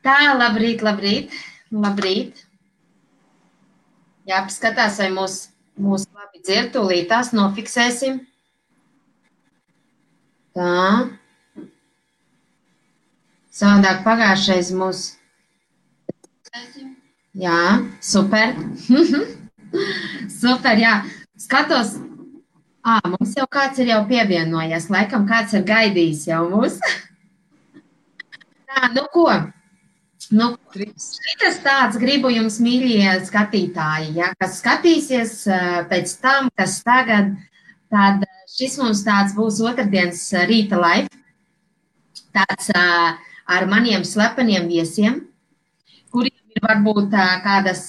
Tā, labrīt. Jāpaskatās, vai mūs labi dzird, tūlīt tās nofiksēsim. Tā. Savādāk pagājušais mūs. Jā, super. Super, jā. Skatos. Mums jau kāds ir jau pievienojies. Laikam kāds ir gaidījis jau mūs. Tā, nu ko? Šitas tāds gribu jums, mīļie skatītāji, ja, kas skatīsies pēc tam, kas tagad, tad šis mums tāds būs otrdienas rīta live, tāds ar maniem slepeniem viesiem, kuriem ir varbūt kādas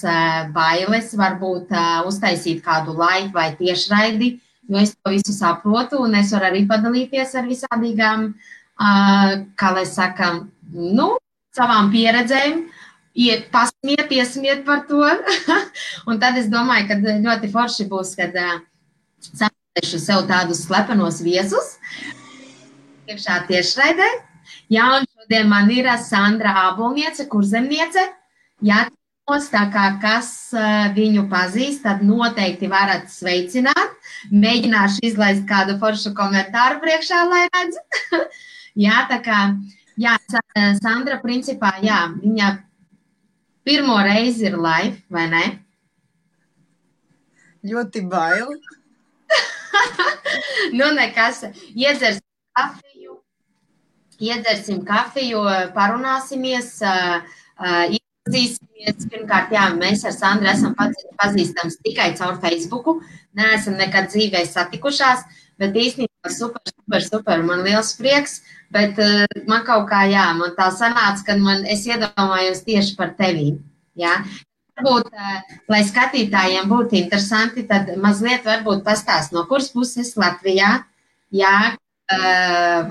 bailes, varbūt uztaisīt kādu live vai tiešraidi, jo es to visu saprotu un es varu arī padalīties ar visādīgām, kā lai saka, savām pieredzēm, iesmiet par to. Un tad es domāju, ka ļoti forši būs, kad sameklēšu sev tādus slepenos viesus, iekšā tiešraidē. Jā, un šodien man ir Sandra Ābolniece, kurzemniece. Jā, tā kā kas viņu pazīst, tad noteikti varat sveicināt. Mēģināšu izlaist kādu foršu komentāru priekšā, lai redz. Jā, tā kā... Jā, Sandra, principā, jā, viņa pirmo reizi ir live, vai ne? Ļoti baili. Nekas, iedzersim kafiju, parunāsimies, iepazīsimies. Pirmkārt, jā, mēs ar Sandru esam pazīstams tikai caur Facebooku, neesam nekad dzīvē satikušās, bet īstenībā super, man liels prieks. Bet man kaut kā, jā, man tā sanāca, kad es iedomājos tieši par tevi, jā. Varbūt, lai skatītājiem būtu interesanti, tad mazliet varbūt pastāst, no kuras puses Latvijā, jā,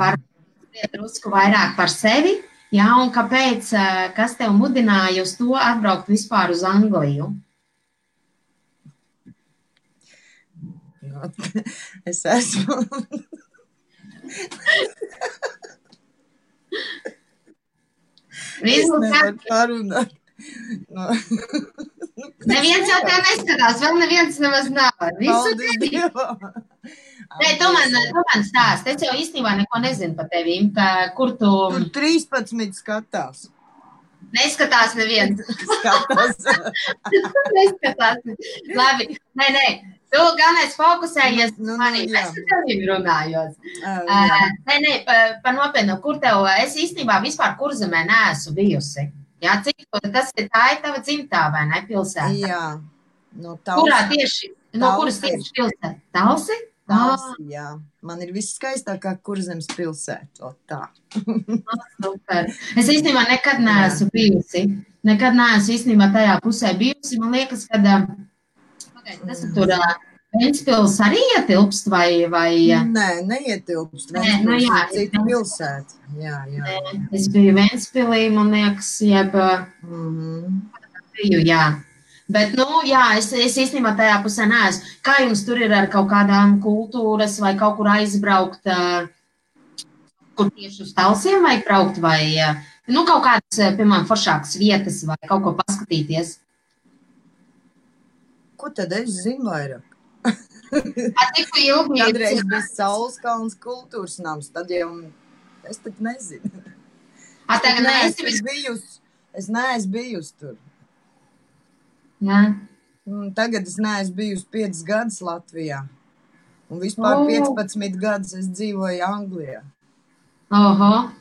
varbūt drusku vairāk par sevi, jā, un kāpēc, kas tev mudināja uz to atbraukt vispār uz Angliju? Es esmu... Es nevaru parunāt. Neviens jau tev neskatās, vēl neviens nemaz nav. Visu tevi. Nē, tu man stāst. Es jau īstenībā neko nezinu par tevīm, kur tu... Tur 13 skatās. Neskatās neviens. Skatās. Neskatās. Labi, nē. Tu galvenais fokusējies manī. Es ar tevīm runājos. Nē, par nopietnu, kur tev... Es īstenībā vispār Kurzemē neesmu bijusi. Jā, cik tas ir tā ir tava dzimtā, vai ne, pilsēta? Jā. No Talsi. Kurā tieši? No kuras tieši pilsēta? Talsi? Talsi, jā. Man ir viss skaistākā Kurzemes pilsēta. Tā. Super. Es īstenībā nekad neesmu bijusi. Nekad neesmu īstenībā tajā pusē bijusi. Man liekas, kad... Tas ir tur Ventspils arī ietilpst vai... Nē, neietilpst. Ventspils ir cita pilsēta. Jā. Es biju Ventspilī, man liekas, biju, jā. Bet, jā, es īstenībā tajā pusē neesmu. Kā jums tur ir ar kaut kādām kultūras vai kaut kur aizbraukt, kur tieši uz Talsiem vajag braukt vai, kaut kādas, piemēram, foršākas vietas vai kaut ko paskatīties? Ko tad es zinu vairāk? Tikko ilgi... Kādreiz bija Saulskalns kultūras nams, tad jau es tad nezinu. Es neesmu bijusi tur. Jā. Tagad es neesmu bijusi 5 gadus Latvijā. Un vispār 15 gadus es dzīvoju Anglijā. Oho.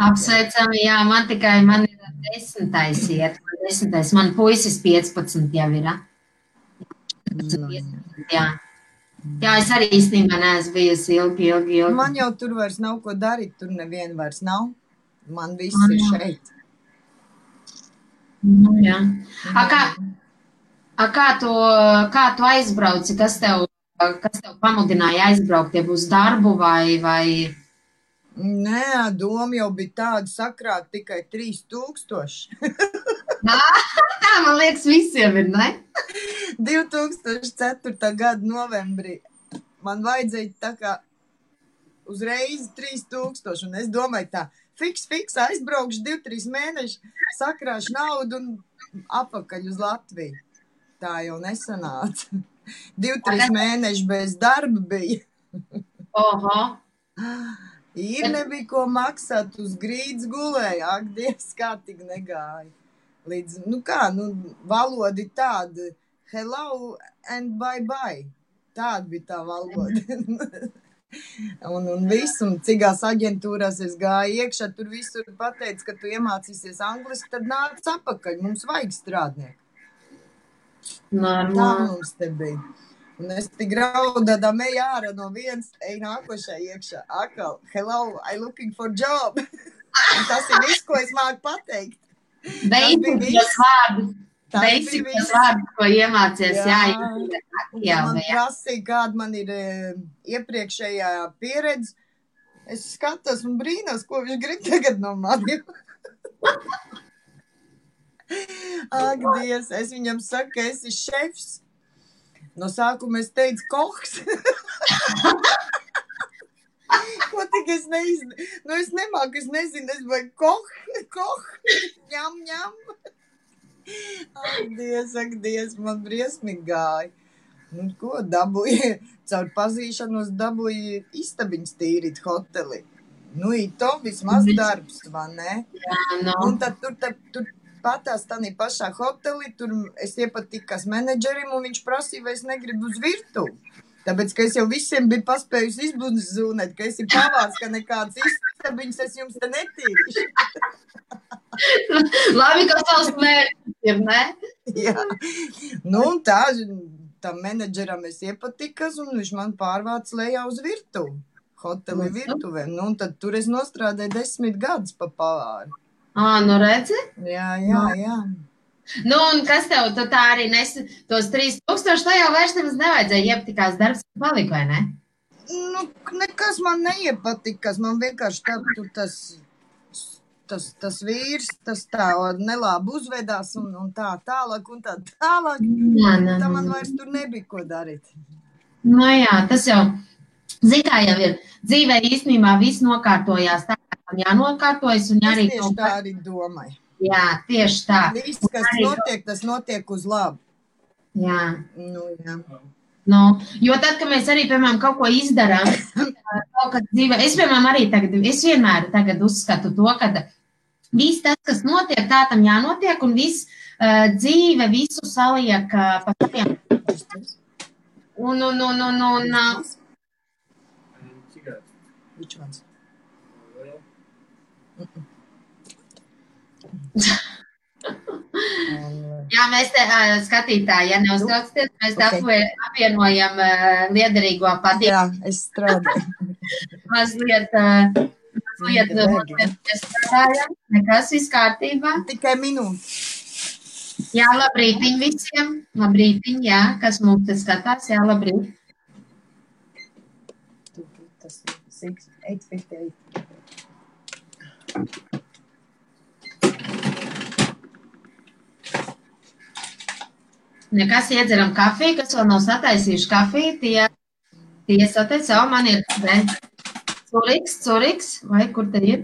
Apsveicami, jā, man ir 10. iet. 10. Man puisis 15 jau ir. Jā. Jā, es arī īstenībā neesmu bijusi ilgi. Man jau tur vairs nav ko darīt, tur neviena vairs nav. Man viss ir šeit. Jā. Kā tu aizbrauci? Kas tev pamudināja aizbraukt, ja būs darbu vai... Nē, doma jau bija tāda sakrāt tikai 3000. Tā, man liekas, visiem ir, ne? 2004. gada novembrī man vajadzēja tā kā uzreiz 3000, un es domāju tā, fiks, aizbraukšu 2-3 mēneši, sakrāšu naudu un apakaļ uz Latviju. Tā jau nesanāca. 2-3 mēneši bez darba bija. Oho. Ir nebija ko maksāt, uz grīdas gulēja. Ak, Dievs, kā tik negāja. Līdz, valodi tāda, hello and bye. Tāda bija tā valoda. un viss, un cigās aģentūrās es gāju iekšā, tur visur pateica, ka tu iemācīsies angliski, tad nāc apakaļ, mums vajag strādnieku. Tā mums te bija. Un es tik raudādā meju ārā no viens, ej nākošai iekšā. Akal, hello, I looking for job. Tas ir viss, ko es māku pateikt. Beidzot vārdu, ko iemācies. Jā, man prasīja, kāda man ir iepriekšējā pieredze. Es skatos un brīnos, ko viņš grib tagad no maniem. Ak, Dievs, es viņam saku, ka esi šefs. No sākuma es teicu, koks. Ko tik es nezinu? Es nemāku, es nezinu, es vai koh, ņem. Ak, Dievs, man briesmīgi gāja. Ko dabūja? Caur pazīšanos dabūja istabiņas tīrīt hoteli. To vismaz darbs, vai ne? Jā, no. Un tad tur patās tādā pašā hotelī, tur es iepatikās menedžerim, un viņš prasīja, vai es negribu uz virtuvi. Tāpēc, ka es jau visiem biju paspējusi izbūzūnēt, ka esi pavārs, ka nekāds istabiņas es jums te netīrīšu. Labi, ka savs mērķis ir, ne? Jā. Un tam menedžeram es iepatikās, un viņš man pārvāca lejā uz virtuvi. Hoteli virtuvē. Un tad tur es nostrādāju 10 gadus pa pavāru. Redzi? Jā. Un kas tev, tu tā arī tos 3000, tā jau vairs nemaz nevajadzēja iepatikās darbs palika, vai ne? Nekas man neiepatikās, man vienkārši tas vīrs, tas tā nelābi uzvedās un tā tālāk. Tā man vairs tur nebija ko darīt. Jā, tas jau, kā jau ir, dzīvē īstenībā viss nokārtojās tā, kā jānokārtojas un arī... Es tieši tā arī domāju. Jā, tieši tā. Viss, kas notiek, tas notiek uz labu. Jā. Jā. Jo tad, kad mēs arī, piemēram, kaut ko izdarām, kaut kad dzīvē, es, piemēram, arī es vienmēr tagad uzskatu to, ka viss tas, kas notiek, tā tam jānotiek, un viss dzīve visu saliek pa saviem. Which ones? Jā, mēs te skatītāji, ja neuztraucaties, mēs te apvienojam liederīgo patību. Jā, es strādāju. Mazliet strādājam, nekas viss kārtībā. Tikai minūte. Jā, labrītiņ visiem. Labrītiņ, jā, kas mums te skatās, jā, labrīt. Tas 8:58. Nekas iedzeram kafiju, kas vēl nav sataisījuši kafiju, tie sataisa, man ir curiks, vai kur te ir?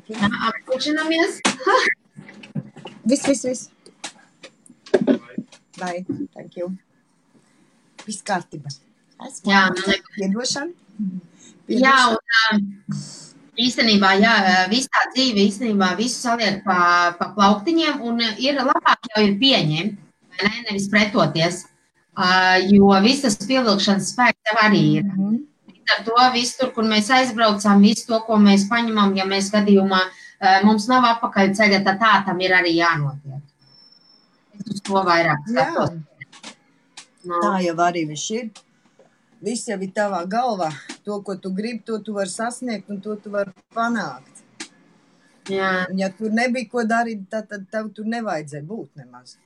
Jā, apkučinamies. Viss. Bye, thank you. Viss kārtībā. Jā, Piedošana. Jā, un īstenībā, viss tā dzīve, īstenībā visu saliek pa plauktiņiem, un ir labāk jau ir pieņemt, nevis pretoties, jo viss tas pievilkšanas spēks tev arī ir. Ar to visu tur, kur mēs aizbraucām, visu to, ko mēs paņemam, ja mēs gadījumā mums nav apakaļ ceļa, tad tā tam ir arī jānotiek. Es uz to vairāk skatos. Tā jau arī viss ir. Viss jau ir tavā galvā. To, ko tu gribi, to tu vari sasniegt un to tu vari panākt. Jā. Un ja tur nebija ko darīt, tad tev tur nevajadzēja būt nemaz.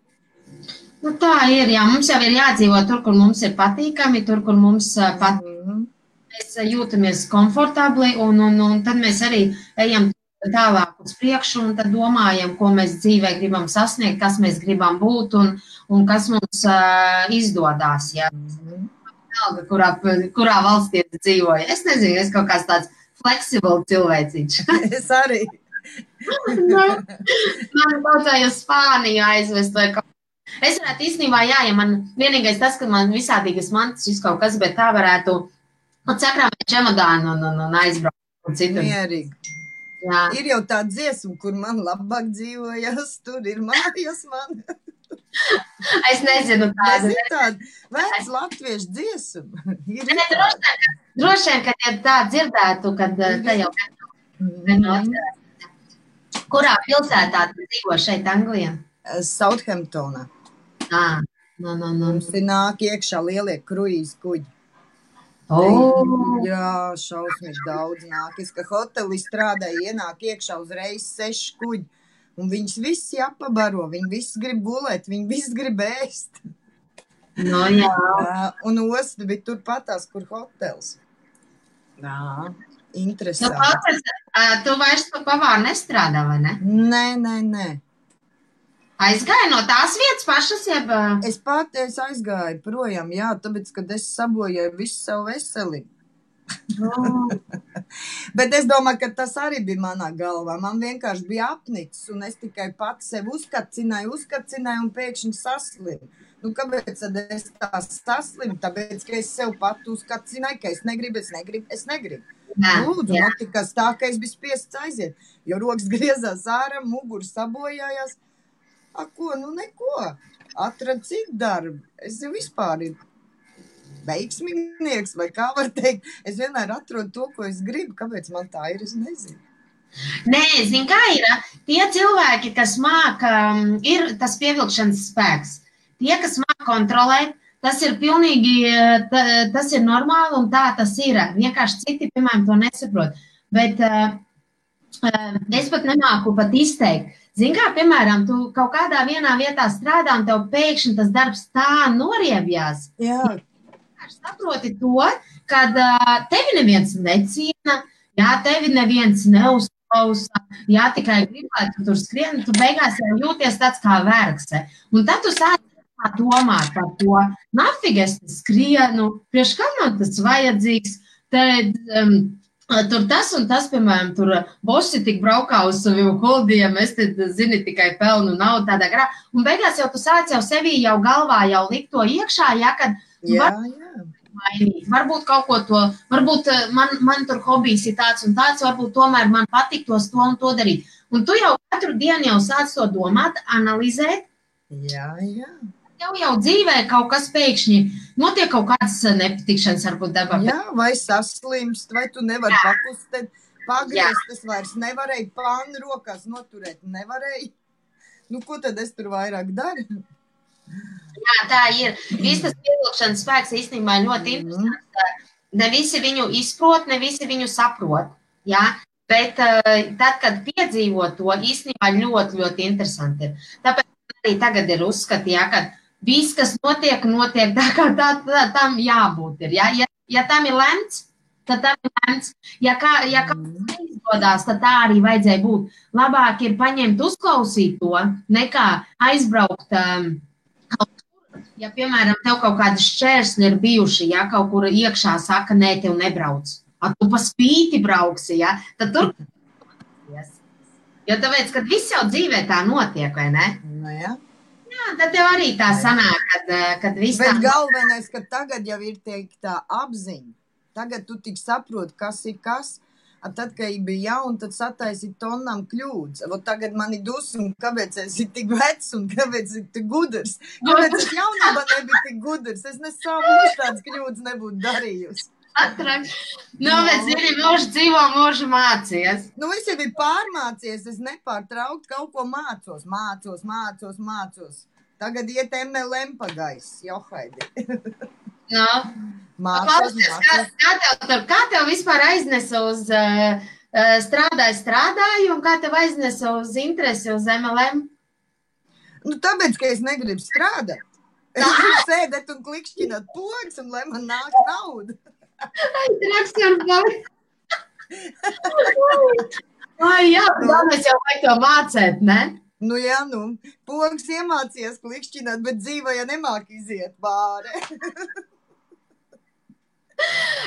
Tā ir, jā. Mums jau ir jādzīvo tur, kur mums ir patīkami, tur, kur mums patīk. Mēs jūtamies komfortabli un tad mēs arī ejam tālāk uz priekšu un tad domājam, ko mēs dzīvē gribam sasniegt, kas mēs gribam būt un kas mums izdodās. Jā. vienalga, kurā valstī es dzīvoju. Es nezinu, es kaut kāds tāds fleksibls cilvēciņš. Es arī. Man vajadzēja uz Spāniju aizvest vai kaut. Es varētu īstenībā, ja man vienīgais tas, ka man visādīgas mantas kaut kas, bet tā varētu sakrāmēt čemodānu un aizbraukt citur. Mierīgi. Jā. Ir jau tā dziesma, kur man labāk dzīvojas, tur ir mājas man. Es nezinu tādu. Es ir tādu vēc latviešu dziesmu. Droši vien, kad ja tā dzirdētu, kad te jau kurā pilsētā tu dzīvo šeit Anglijā? Southamptonā. Mums ir nāk iekšā lielie kruīzi kuģi. Jā, šausmīgi daudz nāk. Es, ka hotelī strādāju, ienāk iekšā uzreiz 6 kuģi. Un viņus visi apabaro, viņi visi grib gulēt, viņi visi grib ēst. No, jā. Un osta bija turpatās, kur hotels. Jā, interesanti. Tu vairs pa pavāru nestrādā, vai ne? Nē. Aizgāju no tās vietas pašas, jeb? Es aizgāju projām, jā, tāpēc, kad es sabojāju visu savu veselību. Bet es domāju, ka tas arī bija manā galvā. Man vienkārši bija apnicis, un es tikai pats sev uzkacināju un pēkšņi saslimu. Nu, kāpēc tad es tā saslimu? Tāpēc, ka es sev pat uzkacināju, ka es negribu. Lūdzu, notikas tā, ka es biju spiests aiziet, jo rokas griezās ārā, muguru sabojājās. Ko? Nu, neko. Atrad citu darbu. Es jau vispār ir veiksminieks, vai kā var teikt. Es vienmēr atrodu to, ko es gribu. Kāpēc man tā ir, es nezinu. Nē, zini, kā ir? Tie cilvēki, kas māka, ir tas pievilkšanas spēks. Tie, kas māka kontrolēt, tas ir pilnīgi, tas ir normāli un tā tas ir. Vienkārši citi, piemēram, to nesaprot. Bet es pat nemāku pat izteikt. Zini, kā, piemēram, tu kaut kādā vienā vietā strādā un tev pēkšņi tas darbs tā noriebjās. Jā. Saproti to, kad tevi neviens neciena, jā, tevi neviens neuzklausa, jā, tikai gribētu tur skrien, tu beigās jau jūties tāds kā vergse. Un tad tu sāc domāt par to, nafig es skrienu, priekš kam man tas vajadzīgs, tad tur tas un tas, piemēram, tur bosi tik braukā uz saviem holdiem, es te, zini, tikai pelnu naudu tādā garā. Un beigās jau tu sāc jau sevī jau galvā jau likt to iekšā, ja, kad mainīt. Varbūt kaut ko to, varbūt man tur hobijs ir tāds un tāds, varbūt tomēr man patiktos to un to darīt. Un tu jau katru dienu jau sāc to domāt, analizēt. Jā. Jau dzīvē kaut kas pēkšņi notiek kaut kādas nepatikšanas varbūt dabā. Jā, vai saslimst, vai tu nevari pakustēt, pagriezt, es vairs nevarēju pānu rokās noturēt, nevarēju. Nu, ko tad es tur vairāk daru? Jā, tā ir. Viss tas pievilkšanas spēks īstenībā ļoti interesants. Ne visi viņu izprot, ne visi viņu saprot. Jā? Bet tad, kad piedzīvo to, īstenībā ļoti, ļoti interesanti ir. Tāpēc arī tagad ir uzskati, jā, ka viss, kas notiek tā kā tam jābūt ir. Ja tam ir lemts, tad tam ir lemts. Ja kāds neizgodās, tad tā arī vajadzēja būt. Labāk ir paņemt, uzklausīt to, nekā aizbraukt kaut kur. Ja, piemēram, tev kaut kādi šķērsļi ir bijuši, ja kaut kur iekšā saka, nē, tev nebrauc. Tu pa spīti brauksi, ja, tad tur. Jo tāpēc, kad viss jau dzīvē tā notiek, vai ne? Nu, jā. Jā, tad tev arī tā sanāk, kad viss tā... Bet galvenais, ka tagad jau ir teikt tā apziņa. Tagad tu tik saproti, kas ir kas. Tad, kad bija jauna, tad sataisi tonnām kļūdas. Tagad man ir dusma, kāpēc es ir tik vecs un kāpēc ir tik gudrs. Kāpēc es jaunībā nebija tik gudrs. Es nesavu tādas kļūdas nebūtu darījusi. Bet zini, mūžu dzīvo, mūžu mācies. Nu, es jau biju pārmācies, es nepārtraukt kaut ko mācos. Tagad iet MLM pagais, Johaidi. No. Kā tev vispār aiznesa uz strādāju un kā tev aiznesa uz interesi uz MLM? Nu, tāpēc, ka es negribu strādāt. Es gribu sēdēt un klikšķināt pogas un lai man nāk nauda. Jā, mēs jau vajag to mācēt, ne? Nu jā, pogas iemācījies klikšķināt, bet dzīvē ja nemāk iziet bāre.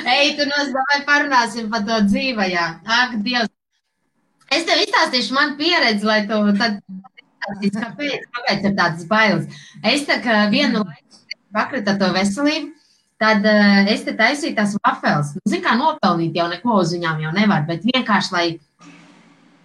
Ej, tu vai parunāsim par to dzīvajā. Ak, Dievs. Es tev izstāstīšu manu pieredzi, lai tu tad izstāstīsi, kāpēc ir tādas bailes. Es tā kā vienu laiku pakrita to veselību, tad es te taisīju tās vafeles. Nu, zin kā nopelnīt jau neko uz viņām jau nevar, bet vienkārši, lai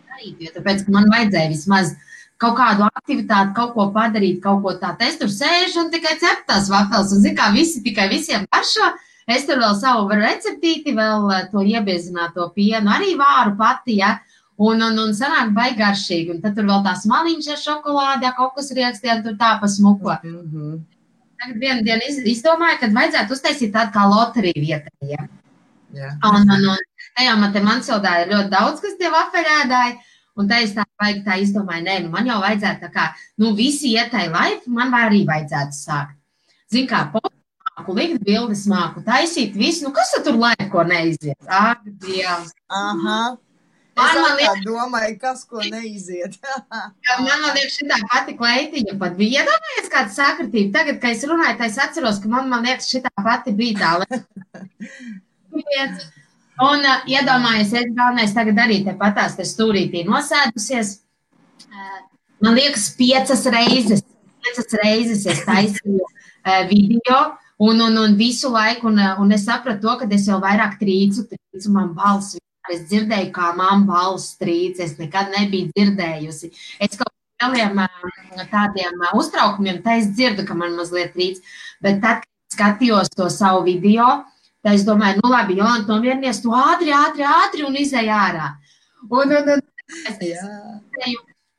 darītu, jo tāpēc, ka man vajadzēja vismaz kaut kādu aktivitāti, kaut ko padarīt, kaut ko tādu. Es tur sēžu un tikai cepu tās vafeles, un zin kā visi tikai visiem garšo. Es tur vēl savu receptīti, vēl to iebiezināto pienu, arī vāru pati, ja, un sanāk baigaršīgi, un tad tur vēl tās maliņas ar šokolādē, kaut kas riekstiem, tur tā pa smuko. Tagad vienu dienu izdomāju, kad vajadzētu uztaisīt tādu kā loteriju vietējiem. Ja. Un tajā Mansildā ir ļoti daudz, kas tie vafelēdāji, un tā es tā baigi tā izdomāju, nē, nu man jau vajadzētu tā kā, nu visi ietai laifu, man arī vajadzētu sākt. Zin kā, likt bildes māku, taisīt visu, nu kas tur laiku, ko neiziet? Ak, Dievs. Aha. Es domāju, kas, ko neiziet. Man liekas, šitā pati kleitiņa pat bija. Iedomājies kāda sakritība. Tagad, kad es runāju, tā es atceros, ka man liekas, šitā pati bija tā. Un iedomājies, es galvenais tagad arī te patās te stūrītī nosēdusies. Man liekas, 5 reizes es taisīju video. Un visu laiku, un es sapratu to, ka es jau vairāk trīcu man balsi. Es dzirdēju, kā man balss trīc, es nekad nebiju dzirdējusi. Es kaut kādiem tādiem uztraukumiem, tā es dzirdu, ka man mazliet trīc, bet tad, kad skatījos to savu video, tā es domāju, nu labi, Jolanta, nomierinies, tu ātri un izēj ārā.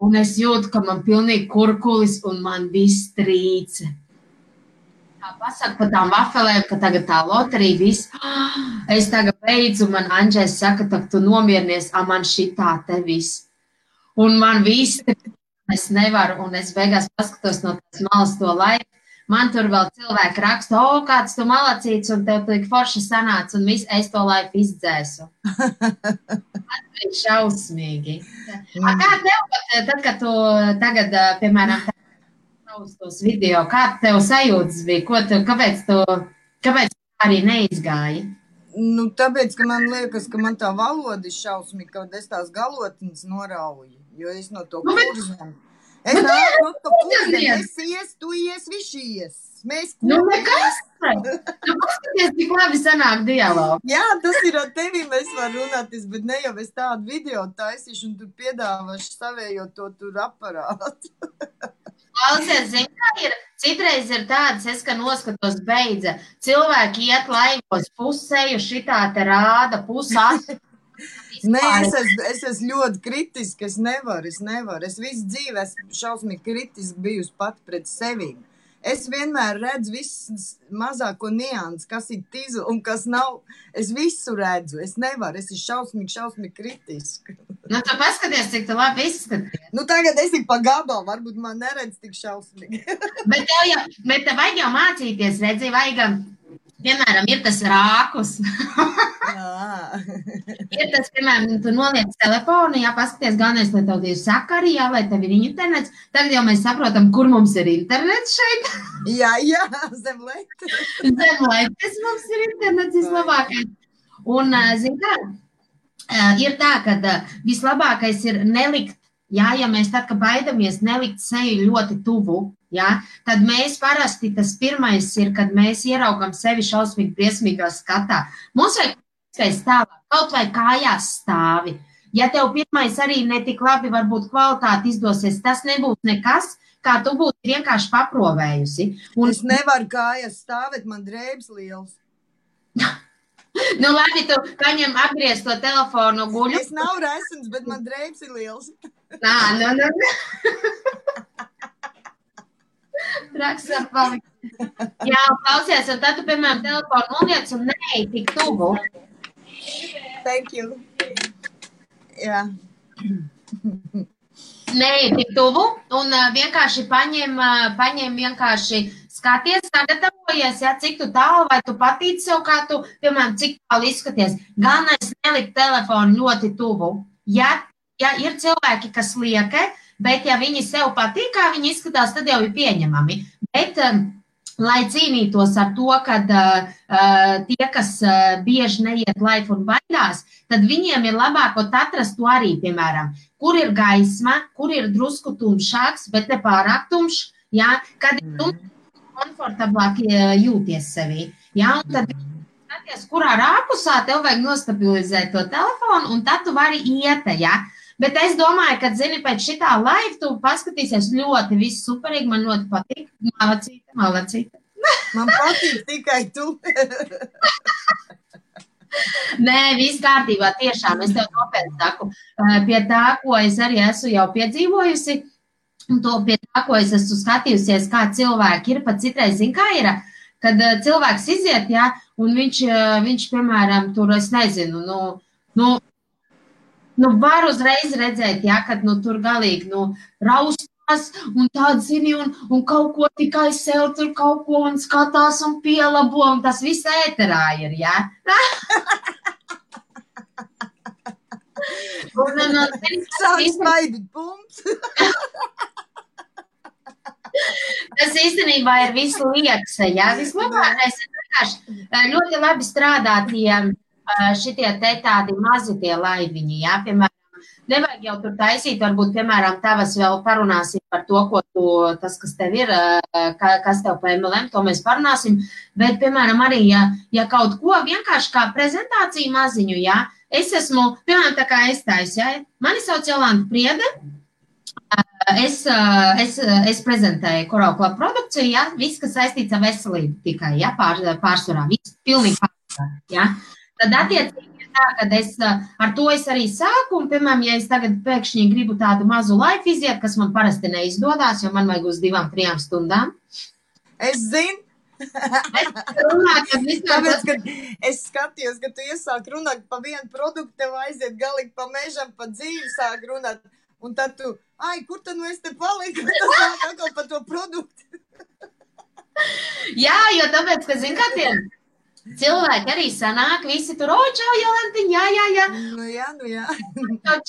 Un es jūtu, ka man pilnīgi kurkulis un man viss trīce. Tā pasaka par tām vafelēm, ka tagad tā loterija viss. Es tagad beidzu, man Andžēs saka, ka tu nomierinies, man šitā te viss. Un man viss, es nevaru, un es beigās paskatos no tās malas to laiku. Man tur vēl cilvēki raksta, kāds tu malacīts, un tev tik forši sanāca, un viss, es to laiku izdzēsu. Tas bija šausmīgi. Kā tev, tad, kad tu tagad, piemēram, uz tos video, kā tev sajūtas bija, kāpēc arī neizgāji? Nu, tāpēc, ka man liekas, ka man tā valoda ir šausmīga, kad es tās galotnes norauju, jo es no to kurzem. Es nāku no to kurzem, es ies, tu ies, viņš ies. Mēs kurzem. Nu, nekas. Tu paskaties, tik labi sanāk dialogu. Jā, tas ir ar tevi, mēs var runāties, bet ne jau es tādu video taisīšu un tu piedāvašu savējo to tur aparātu. Klausies, zin, kā ir, citreiz ir tādas, es, ka noskatos beidza, cilvēki iet laivos pusēju, šitā te rāda, pusā. Nē, es esmu ļoti kritiski, es nevaru. Es visu dzīvi esmu šausmīgi kritiski bijusi pat pret sevi. Es vienmēr redzu visu mazāko niansu, kas ir tizu un kas nav. Es visu redzu, es nevaru, es esmu šausmīgi kritiski. Nu, tu paskaties, cik tu labi izskaties. Nu, tagad es ir pa gabalu, varbūt man neredz tik šausmīgi. Bet tev vajag jau mācīties, redzi, vajag, piemēram, ir tas rākus. Ir tas, piemēram, tu noliec telefonu, jā, paskaties, galvenais, lai tev ir sakari, jā, lai tev ir internets. Tagad jau mēs saprotam, kur mums ir internets šeit. Jā, zem letes. Zem letes mums ir internets vislabākais. Un, zin kā, ir tā, ka vislabākais ir nelikt, jā, ja mēs tad, ka baidamies nelikt seju ļoti tuvu, jā, tad mēs parasti tas pirmais ir, kad mēs ieraugam sevi šausmīgi briesmīgā skatā. Mums vajag stāvā, kaut vai kājās stāvi. Ja tev pirmais arī netik labi varbūt kvalitāti izdosies, tas nebūs nekas, kā tu būtu vienkārši paprovējusi. Un... Es nevaru kājās stāvēt, man drēbs liels. Nu, labi, tu paņem apgriez to telefonu guļu. Es nav resns, bet man drēbs ir liels. Nu. Traks var palikt. Jā, klausies, un tad tu, piemēram, telefonu noliec un neej tik tuvu. Thank you. Jā. Neej tik tuvu un vienkārši paņem vienkārši skaties, sagatavojies, ja, cik tu tālu, vai tu patīci sev, kā tu, piemēram, cik tālu izskaties. Galvenais nelikt telefonu ļoti tuvu. Ja ir cilvēki, kas lieka, bet ja viņi sev patīk, kā viņi izskatās, tad jau ir pieņemami. Bet lai cīnītos ar to, kad tie, kas bieži neiet live un baidās, tad viņiem ir labāk atrast to arī, piemēram, kur ir gaisma, kur ir drusku tumšāks, bet ne pārāk tumšs, ja, kad ir tumšs, komfortablāk jūties sevī. Ja, un tad skaties, kurā rāpusā tev vajag nostabilizēt to telefonu, un tad tu vari iet, ja. Bet es domāju, ka, zini, pēc šitā live tu paskatīsies ļoti viss superīgi, man ļoti patīk. Malacīte. Man patīk tikai tu. Nē, viss kārtībā, tiešām, es tev nopietni saku. Pie tā, ko es arī esmu jau piedzīvojusi, un to pie tā, ko es esmu skatījusies, kā cilvēki ir, pat citreiz, zin, kā ir, kad cilvēks iziet, ja, un viņš, piemēram, tur, es nezinu, var uzreiz redzēt, ja, kad tur galīgi raustās un tāda zini un kaut ko tikai sev tur kaut ko un skatās un pielabo un tas viss ēterā ir, ja. Sāk smaidīt pumps. Tas īstenībā ir viss liekas, ja. Vislabākais ir vienkārši ļoti labi strādāt, ja šitie te tādi mazi tie laiviņi, jā, piemēram, nevajag jau tur taisīt, varbūt, piemēram, tavas vēl parunāsim par to, tas, kas tev ir, kas tev pa MLM, to mēs parunāsim, bet, piemēram, arī, ja kaut ko vienkārši kā prezentāciju maziņu, jā, es esmu, piemēram, tā kā es taisu, jā, mani sauc Jolanta Priede, es prezentēju Coral Club produkciju, jā, viss, kas saistīts ar veselību tikai, jā, pārsvarā, viss pilnīgi pārsvarā, jā. Tad attiecīgi ir tā, ka ar to es arī sāku, un, piemēram, ja es tagad pēkšņi gribu tādu mazu laiku iziet, kas man parasti neizdodas, jo man vajag uz 2-3 stundām. Es zinu. Tāpēc, kad es skatījos, ka tu iesāk runāt pa vienu produktu, tev aiziet galīgi pa mežam, pa dzīvi sāk runāt, un tad tu, kur tad es te paliku, tas nāk atkal pa to produktu. Jā, jo tāpēc, ka zin, kā tiem cilvēki arī sanāk, visi tur, čau, Jolantiņ, jā. Nu jā.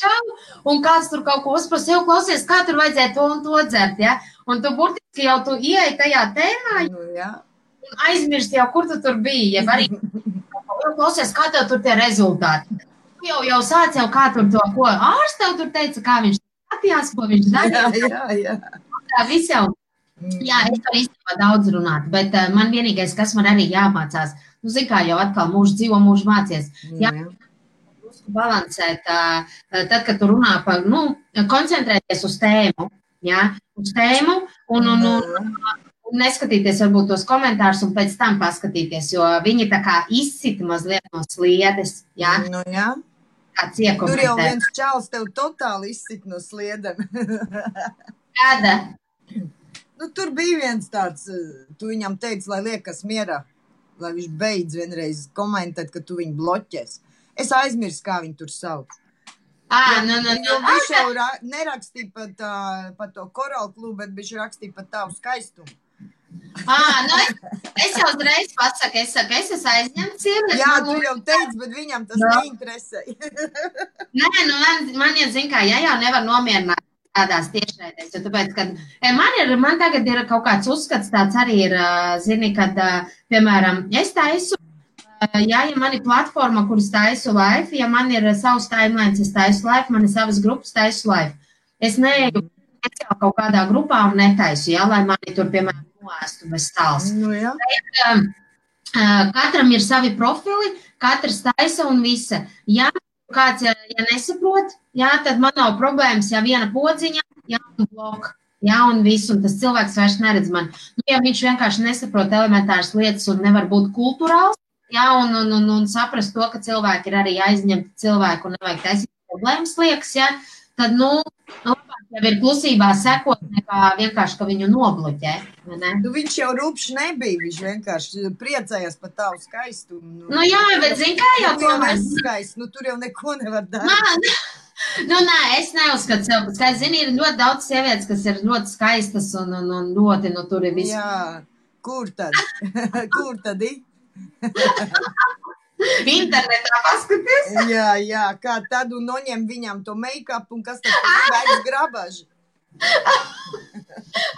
Čau, un kāds tur kaut ko uzprasa, jau klausies, kā tur vajadzēja to un to dzert, ja? Un tu burtiski jau tu ieeji tajā tēmā, un aizmirsti jau, kur tu tur biji, ja arī klausies, kā tev tur tie rezultāti. Tu jau sāc jau, kā tur to, ko ārsts tev tur teica, kā viņš skatījās, ko viņš darīja. Jā. Tā viss jau. Jā, es varu īstenībā daudz runāt, bet man vienīgais, kas man arī jāmācās, zin kā jau atkal mūžu dzīvo, mūžu mācies. Jā, balansēt, tad, kad tu runā par, koncentrēties uz tēmu, jā, uz tēmu un neskatīties varbūt tos komentārus un pēc tam paskatīties, jo viņi tā kā izsita mazliet no sliedes, jā. Nu jā. Kāds iekomentē. Tur jau viens čals tev totāli izsita no sliedem. Kāda? Tur bija viens tāds, tu viņam teici, lai liekas mierā, lai viņš beidz vienreiz komentēt, ka tu viņu bloķēs. Es aizmirsu, kā viņu tur sauc. Jo viņš jau nerakstīja par to Coral Club, bet viņš rakstīja par tavu skaistumu. Es jau uzreiz pasaku, es esmu aizņemts. Jā, tu jau teici, bet viņam tas neinteresē. Nē, man jau zin kā, jau nevar nomierināt tādās tiešraidēs, jo tāpēc, kad man tagad ir kaut kāds uzskats tāds arī ir, zini, kad, piemēram, es taisu, ja man ir platforma, kuras taisu live, ja man ir savs timelines, es taisu live, man ir savas grupas taisu live. Es neeju kaut kādā grupā un netaisu, lai mani tur, piemēram, noēstu bez stāls. Nu, jā. Katram ir savi profili, katrs taisa un visa. Ja kāds, ja nesaprot, tad man nav problēmas, ja viena podziņa, un blok, un viss, un tas cilvēks vairs neredz mani. Ja viņš vienkārši nesaprot elementāras lietas un nevar būt kulturāls, un saprast to, ka cilvēki ir arī aizņemti cilvēku un nevajag taisīt problēmas liekas, tad, labāk jau ir klusībā sekot, nekā vienkārši, ka viņu nobloķē. Viņš jau rupšs nebija, viņš vienkārši priecājās par tavu skaistumu. Jā, bet zin kā jau tomēr. Tur jau neko nevar darīt. Nē, es neuzskatu sev pat skaisti. Zini, ir ļoti daudz sievietes, kas ir ļoti skaistas un ļoti, tur ir viss. Jā, kur tad? Kur tad ir? Internetā paskaties. Jā, kā tad un noņem viņam to make-up un kas tad vairs grabaži.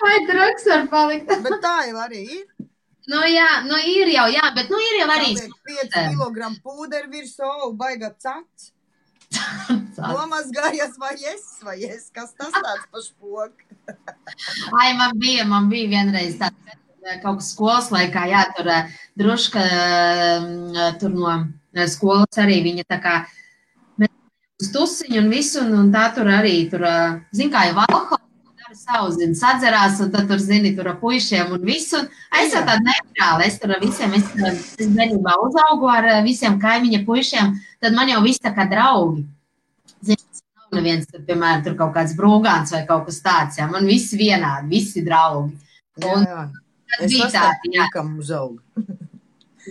Vai drugs var palikt? Bet tā jau arī ir. Nu, jā, nu ir jau, jā, bet nu ir jau arī. Saliek 5 kilogramu pūderu virsū, baiga cats. Nomazgājies vai es, kas tas tāds pa špoku? Ai, man bija vienreiz tāds kaut kas skolas laikā, jā, tur druška tur no skolas arī viņa tā kā uz tusiņu un visu, un tā tur arī tur, zin kā jau alkoholu dara savu, zin, sadzerās, un tad tur, zini, tur ar puišiem un visu. Es jau tāda neitrāla, es tur ar visiem, es bērnībā uzaugu ar visiem kaimiņa puišiem, tad man jau viss tā kā draugi. Zini, nav neviens, tur, piemēram, tur kaut kāds brūgāns vai kaut kas tāds, jā, man visi vienādi, visi draugi. Un, jā. Es tādi puikam uzaugu.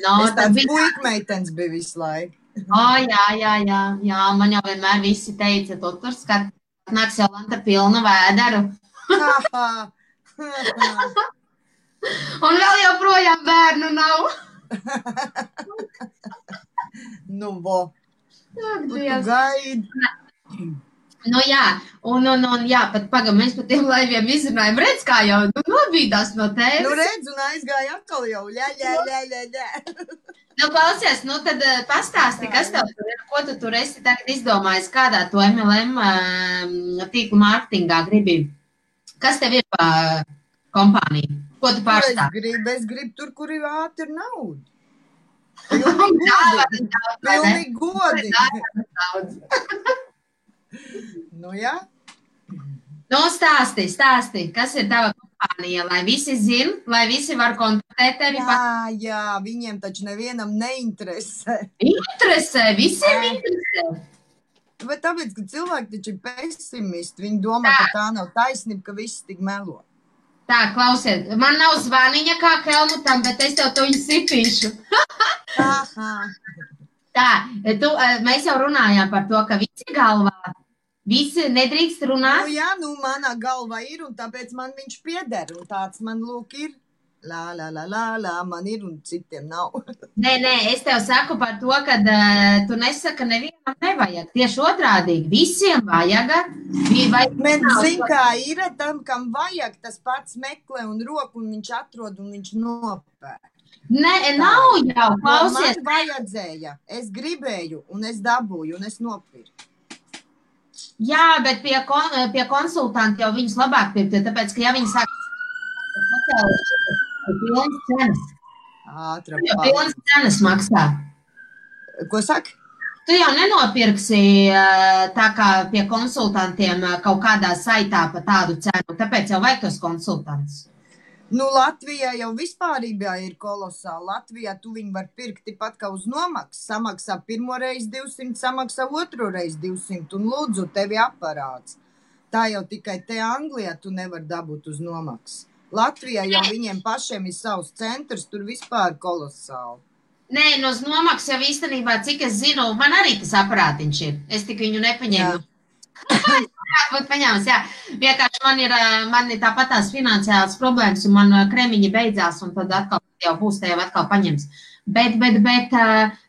No, es tāds puikmeitens biju visu laiku. Jā, man jau vienmēr visi teica, tu tur skat, nāks Jolanta pilna vēderu. Un vēl joprojām bērnu nav. Nu, vo. Tu gaidi. Nu jā, un jā, pat pagam, mēs pat tiem laiviem izrunājam, redz, kā jau nobīdās no tēvis. Nu redz, un aizgāja atkal jau, ļā. Nu, klausies, nu tad pastāsti, kas tev tur ir, ko tu tur esi tagad izdomājis, kādā to MLM tīklu mārketingā gribi. Kas tev ir pa kompāniju? Ko tu pārstāvi? Es gribu tur, kur ir ātri nauda. Pilnīgi godīgi. Nu, jā. Nu, stāsti, kas ir tava kompānija, lai visi zin, lai visi var kontaktēt tevi. Jā, viņiem taču nevienam neinteresē. Interesē, visiem interesē. Bet tāpēc, ka cilvēki taču ir pesimisti, viņi domā, ka tā nav taisnība, ka viss tik melo. Tā, klausiet, man nav zvaniņa kā Helmutam, bet es tev to viņu sitīšu. Tā, mēs jau runājām par to, ka visi galvā, visi nedrīkst runāt. Nu jā, manā galvā ir, un tāpēc man viņš pieder, un tāds man lūk ir. Lā, man ir, un citiem nav. Nē, es tev saku par to, ka tu nesaka, nevienam nevajag. Tieši otrādīgi, visiem vajaga. Bet zin, kā ir, tam, kam vajag, tas pats meklē un roku, un viņš atrod, un viņš nopēr. Nē, nav jau, klausies. Man vajadzēja, es gribēju, un es dabūju, un es nopirku. Jā, bet pie konsultanti jau viņus labāk pirkt, tāpēc, ka ja viņi sāk pilnas cenas. Pilnas cenas maksā. Ko saka? Tu jau nenopirksi tā kā pie konsultantiem kaut kādā saitā pa tādu cenu, tāpēc jau vajag tos konsultants. Nu, Latvijā jau vispārībā ir kolosāli. Latvijā tu viņu var pirkt pat kā uz nomaksu. Samaksā pirmo reizi 200, samaksā otro reizi 200 un lūdzu tevi aparāts. Tā jau tikai te Anglijā tu nevar dabūt uz nomaksu. Latvijā jau viņiem pašiem ir savs centrs, tur vispār kolosāli. Nē, no uz nomaksu jau īstenībā, cik es zinu, man arī tas aparātiņš ir. Es tik viņu nepaņēmu. Būt paņēmis, jā. Vienkārši man ir tāpat tās finansiālas problēmas, un man kremiņi beidzās, un tad atkal jau būs, te jau atkal paņems. Bet,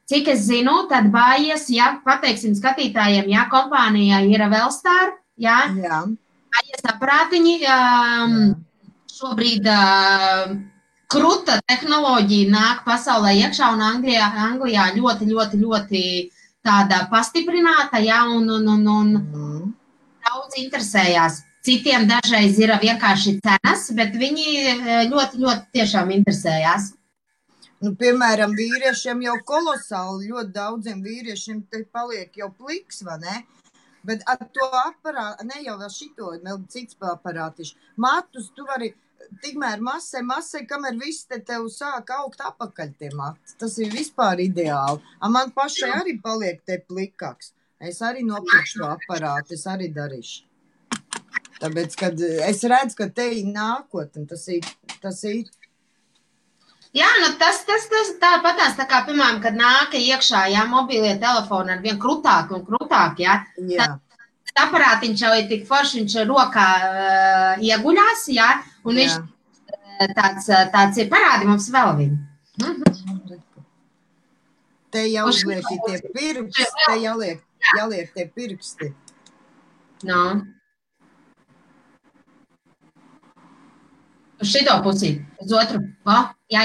cik es zinu, tad bājies, ja pateiksim skatītājiem, ja kompānijā ir Wellstar, ja, bājies aparātiņi, šobrīd kruta tehnoloģija nāk pasaulē iekšā, un Anglijā ļoti tāda pastiprināta, ja, un daudz interesējās. Citiem dažreiz ir vienkārši cenas, bet viņi ļoti tiešām interesējās. Nu, piemēram, vīriešiem jau kolosāli, ļoti daudziem vīriešiem te paliek jau pliks, vai ne? Bet ar to aparātu, ne jau vēl šito, vēl cits aparātiši. Matus tu vari tikmēr masē, kamēr viss te tev sāk augt apakaļ tie mati. Tas ir vispār ideāli. Man pašai arī paliek te plikāks. Es arī nopirkšu to aparātu, es arī darīšu. Tāpēc, kad es redzu, ka te ir nākotne, tas ir. Jā, nu tas tāpatās, tā kā, piemēram, kad nāka iekšā, jā, mobilie telefoni ar vien krutāk un krutāk, jā. Tas aparātiņš jau ir tik forši, viņš rokā ieguļās, jā, un viņš tāds ir, parādi mums vēl viņu. Te jau uzliek tie pirksti, te jāliek tie pirksti. No. Uz šito pusī, uz otru. O, jā.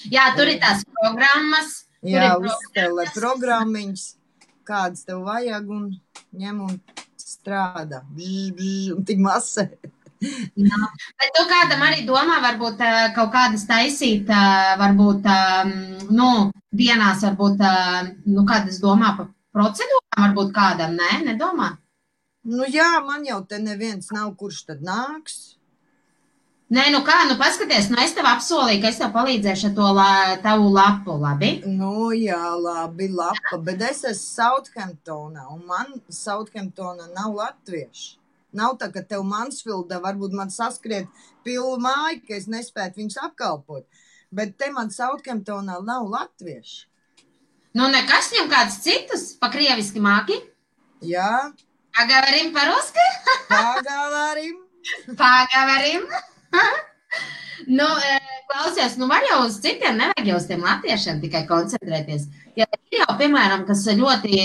Jā, tur ir tās programmas. Jā, uzstelē programmiņas, kādas tev vajag un ņem un strādā. Un tik masē. Jā. Bet tu kādam arī domā, varbūt kaut kādas taisīt, varbūt, nu, dienās, varbūt, nu, kādas domā par procedūrām, varbūt kādam, nē, nedomā? Nu jā, man jau te neviens nav, kurš tad nāks. Nē, nu kā, nu paskaties, nu es tev apsolīju, ka es tev palīdzēšu ar to tavu lapu, labi? Nu jā, labi, lapa, bet es esmu Southamptonā, un man Southamptonā nav latvieši. Nav tā, ka tev Mansfieldā varbūt man saskriet pilnu māju, ka es nespētu viņus apkalpot, bet te man Southamptonā nav latvieši. Nu nekas, viņam kāds citus, pa krieviski māki? Jā. Pagaverim par-ruski? Pagaverim. Pagaverim. Nu, klausies, nu var jau uz citiem, nevajag jau uz tiem latviešiem tikai koncentrēties. Ja ir jau, piemēram, kas ļoti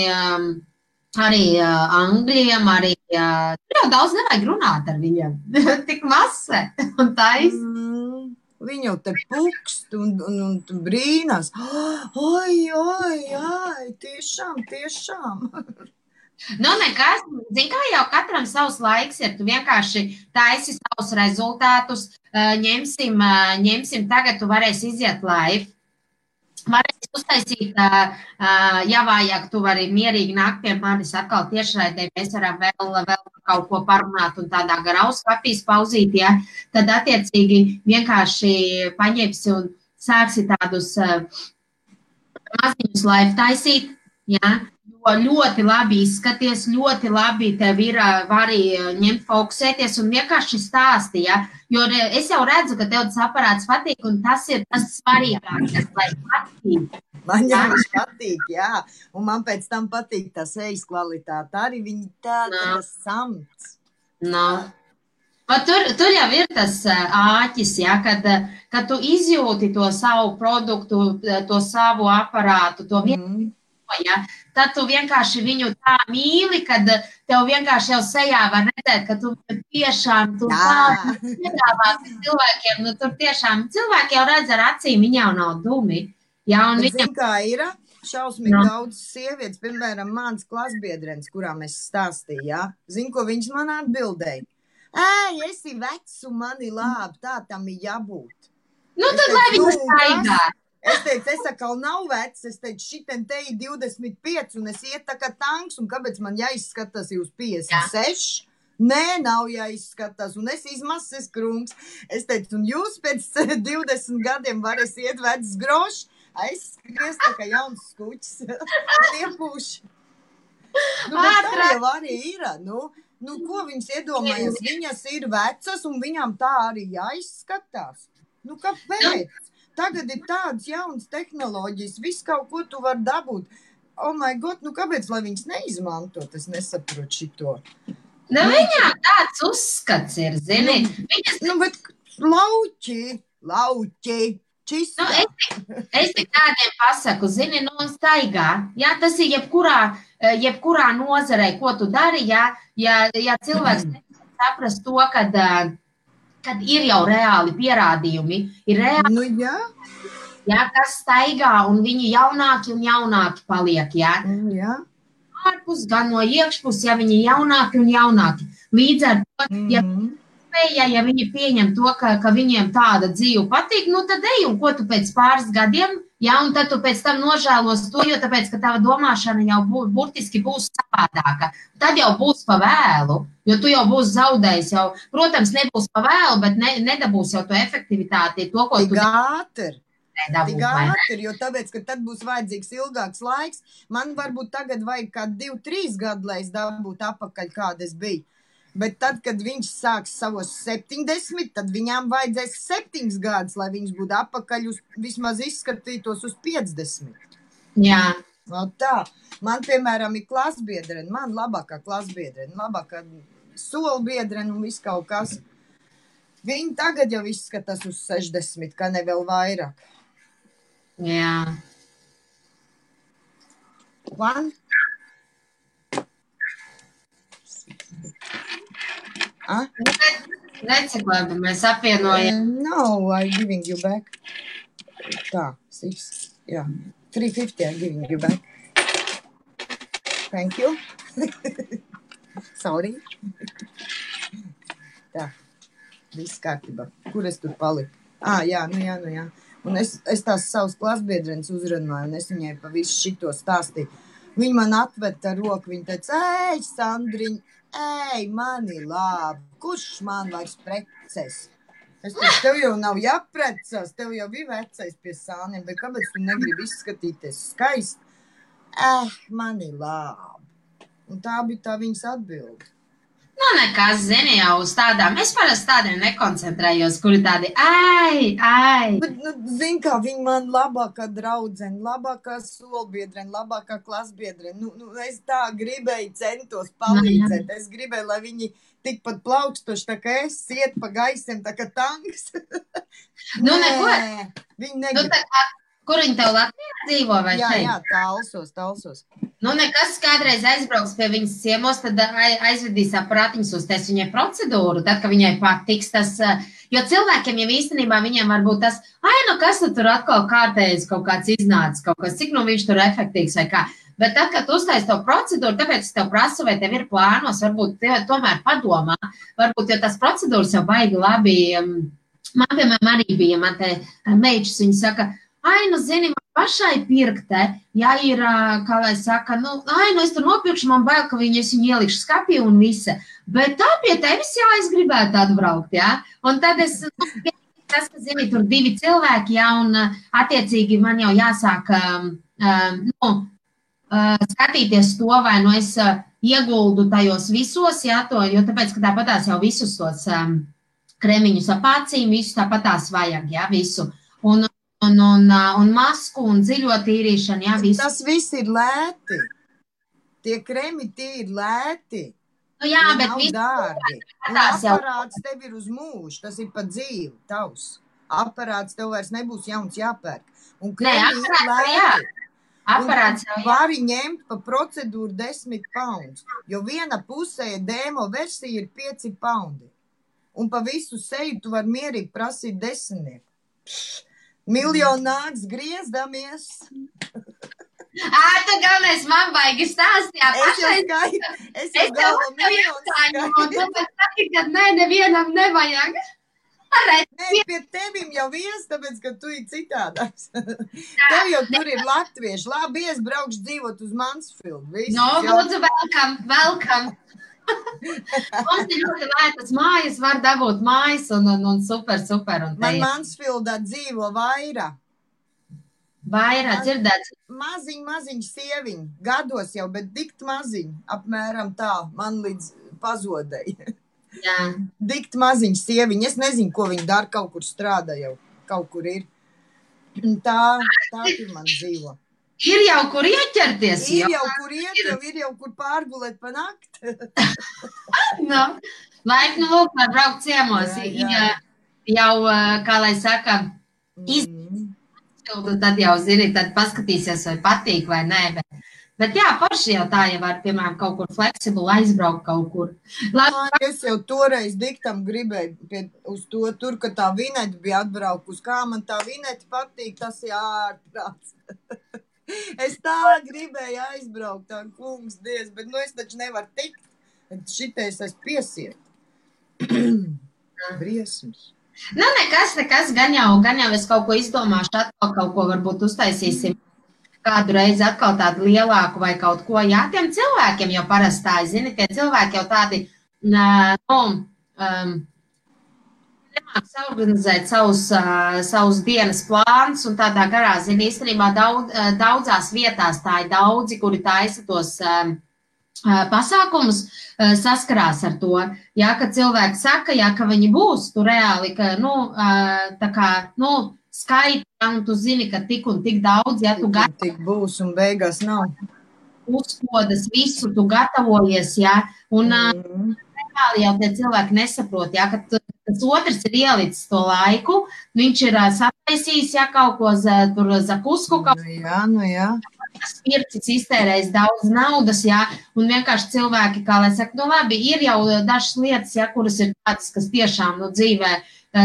arī angļiem, arī tur jau daudz nevajag runāt ar viņiem. Tik mase un tais. Viņi jau te pukst un brīnās. Oi, tiešām. Nu, nekas, zin kā jau katram savs laiks ir, tu vienkārši taisi savus rezultātus, ņemsim tagad, tu varēsi iziet live, varēsi uztaisīt, ja vajag, tu vari mierīgi nākt pie manis atkal tiešraidē, mēs varam vēl kaut ko parunāt un tādā garā uzskapīs pauzīt, ja, tad attiecīgi vienkārši paņemsi un sāksi tādus maziņus live taisīt, ja, ļoti labi izskaties, ļoti labi tev ir, vari ņemt fokusēties un vienkārši stāsti, ja? Jo es jau redzu, ka tev tas aparāts patīk un tas ir tas svarīgākais, lai patīk. Man jau viņš patīk, jā, un man pēc tam patīk tā sejas kvalitāte, arī viņi tas samts. No. Tur jau ir tas āķis, ja, kad tu izjūti to savu produktu, to savu aparātu, to vienu. Ja? Tad tu vienkārši viņu tā mīli, kad tev vienkārši jau sejā var redzēt, ka tu tiešām tā piedāvāti cilvēkiem. Nu, tur tiešām cilvēki jau redz ar acīm, viņi jau nav dumi. Ja? Un viņam... Zin, kā ir? Šausmīgi daudz sievietes, piemēram, mans klasbiedrens, kurām es stāstīju, ja? Zin, ko viņš man atbildēja? Esi vecs un mani labi, tā tam ir jābūt. Nu, tad lai viņu staigā. Es teicu, es atkal nav vecs, es teicu, šitien te ir 25 un es iet tā kā tanks, un kāpēc man jāizskatās jūs 56? Nē, nav jāizskatās, un es izmases krunks. Es teicu, un jūs pēc 20 gadiem varēs iet vecs grošs, aizskries tā kā jauns skuķis, un iepūši. Nu, bet tā jau arī ir, nu, ko viņas iedomājas? Viņas ir vecas, un viņām tā arī jāizskatās. Nu, kāpēc? Tagad ir tādas jaunas tehnoloģijas, viss kaut ko tu var dabūt. Oh my God, nu kāpēc, lai viņas neizmantot? Es nesaprotu šito. Nu, viņām tāds uzskats ir, zini. Nu, bet lauķi, čistā. Nu, es tik tādiem pasaku, zini, nu, staigā. Jā, tas ir jebkurā nozarē, ko tu dari, ja cilvēks saprast to, kad ir jau reāli pierādījumi, ir reāli, nu, jā, kas staigā, un viņi jaunāki un jaunāki paliek, jā. Jā. Ārpus, gan no iekšpus, ja viņi jaunāki un jaunāki. Līdz ar to, ja viņi pieņem to, ka viņiem tāda dzīve patīk, nu tad ej, un ko tu pēc pāris gadiem, jā, un tad tu pēc tam nožēlos to, jo tāpēc, ka tava domāšana jau burtiski būs savādāka. Tad jau būs pa vēlu, jo tu jau būsi zaudējis jau. Protams, nebūs pa vēlu, bet nedabūs jau to efektivitāti, to, ko tu... Tik ātri, jo tāpēc, ka tad būs vajadzīgs ilgāks laiks. Man varbūt tagad vajag kā 2-3 gadu, lai es dabūtu apakaļ, kāda es biju. Bet tad, kad viņš sāks savos 70, tad viņām vajadzēs 7 gadus, lai viņš būtu apakaļ vismaz izskatītos uz 50. Jā. No tā. Man, piemēram, ir klasbiedrene, man labākā klasbiedrene, labākā solbiedrene un viss kaut kas. Viņi tagad jau izskatās uz 60, kā ne vēl vairāk. Jā. One. Reci, labi, mēs apvienojam. No, I'm giving you back. Tā, 6, jā. 350 I'm giving you back. Thank you. Sorry. Tā, viss kārtībā. Kur es tur paliku? Jā. Un es tās savus klasbiedrenes uzrunāju, un es viņai pa visu šito stāstīju. Viņa man atved ar roku, viņa teica, ej, Sandriņ, ej, mani labi, kurš man vairs preces? Es teicu, tev jau nav jāprecās, tev jau bija vecais pie sāniem, bet kāpēc tu negribi izskatīties skaisti? Mani labi. Un tā bija tā viņas atbilde. Nu, nekas, zini, jau uz tādām. Es parasti tādiem nekoncentrējos, kuri tādi, ai. Bet, zini, kā viņa man labākā draudzene, labākā solbiedrene, labākā klasbiedrene. Es tā gribēju centos palīdzēt. Es gribēju, lai viņi tikpat plaukstoši, tā kā es iet pa gaisiem, tā kā tanks. Neko. Viņi negrib. Kur viņi tev Latvijā dzīvo vai šeit? Jā, talsos. Nekas kādreiz aizbrauks pie viņas ciemos, tad aizvedīs aparātiņus uztais viņai procedūru, tad, ka viņai patiks tas, jo cilvēkiem jau īstenībā viņiem var būt tas, kas tur atkal kārtējas kaut kāds iznācis, kaut kas, cik viņš tur efektīvs vai kā. Bet tad, kad tu uztais to procedūru, tāpēc es tev prasu, vai tev ir plānos, varbūt tev tomēr padomā, varbūt, jo tas procedūras jau baigi labi, man, piemēram, arī bija, man te meičs, viņi saka, zini, man pašai pirkte, ja ir, kā lai saka, es tur nopirkšu, man bail, ka es viņu ielikšu skapī un visa. Bet tā pie tevis es gribētu atbraukt, jā. Un tad es, tas, ka, zini, tur 2 cilvēki, jā, un attiecīgi man jau jāsāk, skatīties to, vai es ieguldu tajos visos, jā, jo tāpēc, ka tāpatās jau visus tos kremiņus ap acīm, visus tāpatās vajag, jā, visu. Un masku un dziļo tīrīšanu, jā, visu. Tas viss ir lēti. Tie kremi, tie ir lēti. Jā, bet viss dārgi. Un aparāts tev ir uz mūžu, tas ir pa dzīvi, tavs. Aparāts tev vairs nebūs jauns jāpērk. Un kremi ir lēti. Aparāts jau, jā. Vari ņemt pa procedūru 10 pounds, jo viena pusē demo versija ir 5 poundi. Un pa visu seju tu var mierīgi prasīt 10. Miljonu nāks griezdamies. Tu galvenais man baigi stāstījāt. Es jau galva miljonu skaidru. Nē, nevienam nevajag. Pie tevim jau tāpēc, ka tu ir citādāks. Tev jau tur ir latvieši. Labi, es braukšu dzīvot uz Mansfield. Lūdzu, welcome. Mums ir ļoti lētas mājas, var dabūt mājas un super. Man Mansfieldā dzīvo Vaira. Vaira, dzirdēts? Maziņ sieviņ, gados jau, bet dikt maziņ, apmēram tā, man līdz pazodēja. Jā. Dikt maziņ sieviņ, es nezinu, ko viņi dara, kaut kur strādā jau, kaut kur ir. Tā tur man dzīvo. Ir jau kur ieķerties. Ir jau kur iet, ir jau kur pārgulēt pa nakti. Laipni lūk, var braukt ciemos. Jau, kā lai saka, tad jau zini, tad paskatīsies, vai patīk vai nē. Bet jā, paši jau tā, ja var, piemēram, kaut kur fleksibuli aizbraukt kaut kur. Es jau toreiz diktam gribēju uz to, tur, ka tā vineta bija atbraukus. Kā man tā vineta patīk, tas ārprāts. Es tā gribēju aizbraukt, tā kungs dievs, bet es taču nevaru tikt. Šitais es piesiet. Briesmas. Nekas, gan jau es kaut ko izdomāšu, atkal kaut ko varbūt uztaisīsim kādu reizi atkal tādu lielāku vai kaut ko. Jā, tiem cilvēkiem jau parastāji, zini, tie cilvēki jau tādi, nemāk saorganizēt savus dienas plānus un tādā garā, zini, īstenībā daudzās vietās tā ir daudzi, kuri taisa tos pasākumus, saskarās ar to. Jā, ka cilvēki saka, jā, ka viņi būs tu reāli, ka, tā kā, skaita, un tu zini, ka tik un tik daudz, ja tu tik būs un beigās nav. Uzkodas visu, tu gatavojies, jā, un reāli jau tie cilvēki nesaprot, jā, ka tas otrs ir ielicis to laiku, viņš ir sataisījis, jā, kaut ko tur zakusku. Jā. pircis iztērējis daudz naudas, jā, un vienkārši cilvēki, kā lai saka, nu labi, ir jau dažas lietas, jā, kuras ir tādas, kas tiešām, nu, dzīvē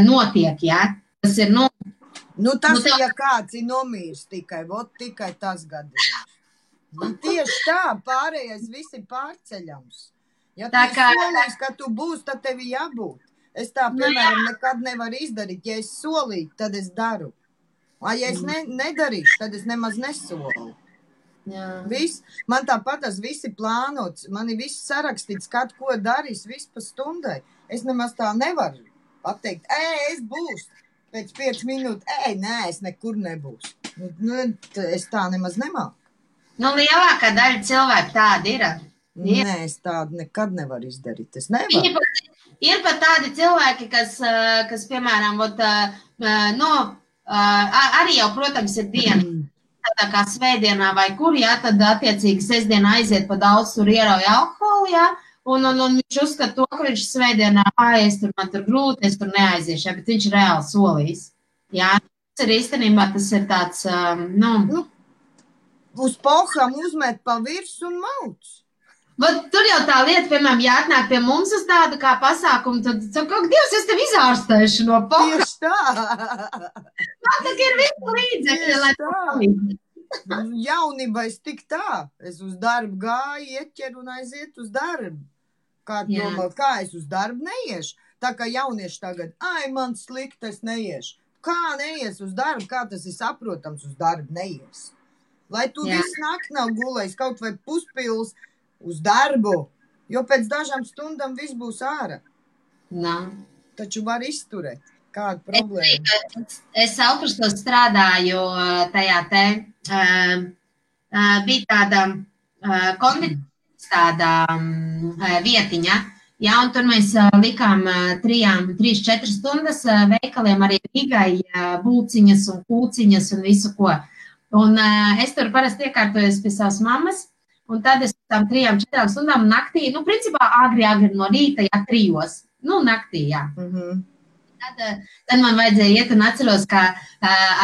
notiek, jā, tas ir, nu... Nu, tas ir, ja kāds ir nomīrs tikai, vot tikai tas gadījums. Nu, tieši tā, pārējais viss ir pārceļams. Ja tu solīs, ka tu būsi, tad tev ir jābūt. Es tā, piemēram, nekad nevaru izdarīt. Ja es solītu, tad es daru. Ja es nedarīšu, tad es nemaz nesolu. Viss, man tāpat tas viss ir plānots. Man ir viss sarakstīts, kad ko darīs, viss pa stundai. Es nemaz tā nevaru pateikt, es būšu. Pēc 5 minūtes, nē, es nekur nebūšu. Nu, es tā nemaz nemāku. Nu, lielākā daļa cilvēku tāda ir. Nē, es tādu nekad nevaru izdarīt. Es nevaru. Ir pat tādi cilvēki, kas piemēram, arī jau, protams, ir diena, tādā kā svētdienā vai kur, jā, tad attiecīgi sestdienā aiziet pa daudz, tur ierauja alkoholu, jā, un viņš uzskata to, ka viņš svētdienā, man tur grūti, es tur neaiziešu, jā, bet viņš reāli solīs. Jā, tas ir īstenībā, tas ir tāds, uz pohām uzmet pa virs un mauc. Tur jau tā lieta, piemēram, ja atnāk pie mums uz tādu kā pasākumu, tad kaut Dievs, es tev izārstēšu no pohām. Tieši tā. Man tā ir visu līdzekļi, lai palīdzi. Jaunībā es tik tā. Es uz darbu gāju, ieķeru un aiziet uz darbu. Kā es uz darbu neiešu? Tā kā jaunieši tagad, man slikti, es neiešu. Kā neies uz darbu? Kā tas ir saprotams, uz darbu neies? Lai tu visu nakti nav gulējis, kaut vai puspils, uz darbu, jo pēc dažām stundām viss būs ārā. Taču var izturēt. Kāda problēma? Es Aukrustos strādāju tajā te, bija tāda konditoris tāda vietiņa, jā, un tur mēs likām 3-4 stundas veikaliem arī Rīgai būciņas un kūciņas un visu ko. Un es tur parasti iekārtojos pie savas mammas, un tad es tam 3-4 stundām naktī, principā agri no rīta, jā, 3, naktī, jā. Tad man vajadzēja iet un atceros, ka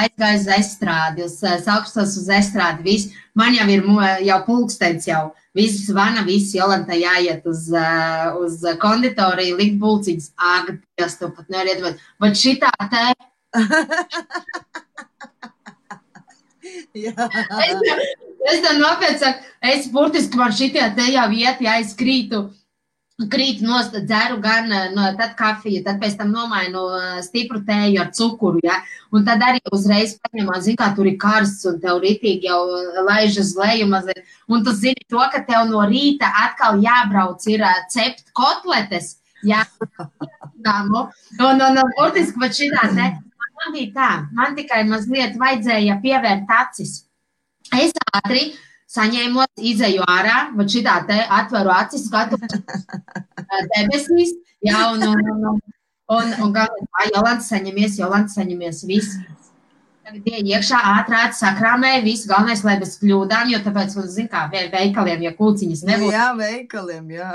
aizgāju uz estrādi, uz Aukrustos uz estrādi, viss. Man jau ir jau pulkstenis jau, viss zvana, viss Jolanta jāiet uz konditoriju, likt būciņas. Dievs, tu pat nevar iedomāt. Bet šitā te... Es tam nopietni saku, es burtiski man šitie te jau iet, ja es krītu nost, dzeru gan tad kafiju, tad pēc tam nomainu stipru tēju ar cukuru, ja, un tad arī uzreiz paņemā, zin kā tur ir karsts un tev ritīgi jau laižas leju mazliet, un tu zini to, ka tev no rīta atkal jābrauc ir cept kotletes, ja, un burtiski pat šitā te, man bija tā, man tikai mazliet vajadzēja pievērt acis. Es ātri saņēmot, izeju ārā, bet šitā te atveru acis, skatu debesīs, jā, un Jolanta saņemies, viss. Tagad iekšā ātrāt sakrāmēja, viss, galvenais, lai bez kļūdām, jo tāpēc, zin kā, veikaliem, ja kūciņas nebūtu. Jā, veikaliem, jā.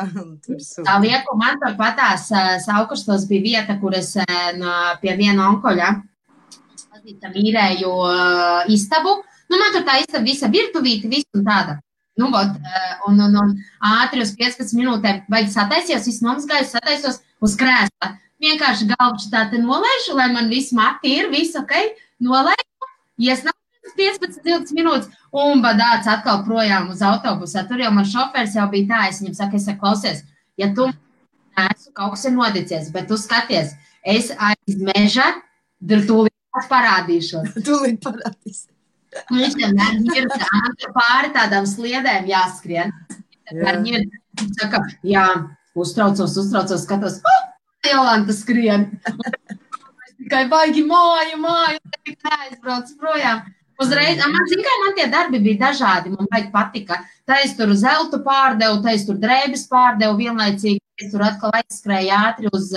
Tā lieku, man patās Aukrustos bija vieta, kur es pie viena onkoļa īrēju istabu. Man tur tā istaba visa virtuvīti, viss un tāda. Un ātri uz 15 minūtēm vajag sataisījos, viss nomazgājos, sataisos uz krēsla. Vienkārši galvuši tā te nolaišu, lai man viss mati ir, viss ok, nolaišu, iesnāju 15-20 minūtes un badāts atkal projām uz autobusā. Tur jau man šofērs jau bija tā, es viņam saku, klausies, ja tu neesmu kaut kas ir nodicies, bet tu skaties, es aiz meža, tūlīt parādīšos. Tūlīt parādīsies. Viņš vienmēr ir pāri tādām sliedēm jāskrien. Viņi saka, jā, uztraucos, skatos, Jolanta skrien. Es tikai baigi māju, neaizbrauc projām. Uzreiz, man tie darbi bija dažādi, man baigi patika. Tā es tur zeltu pārdevu, tā es tur drēbes pārdevu vienlaicīgi, es tur atkal aizskrēju ātri uz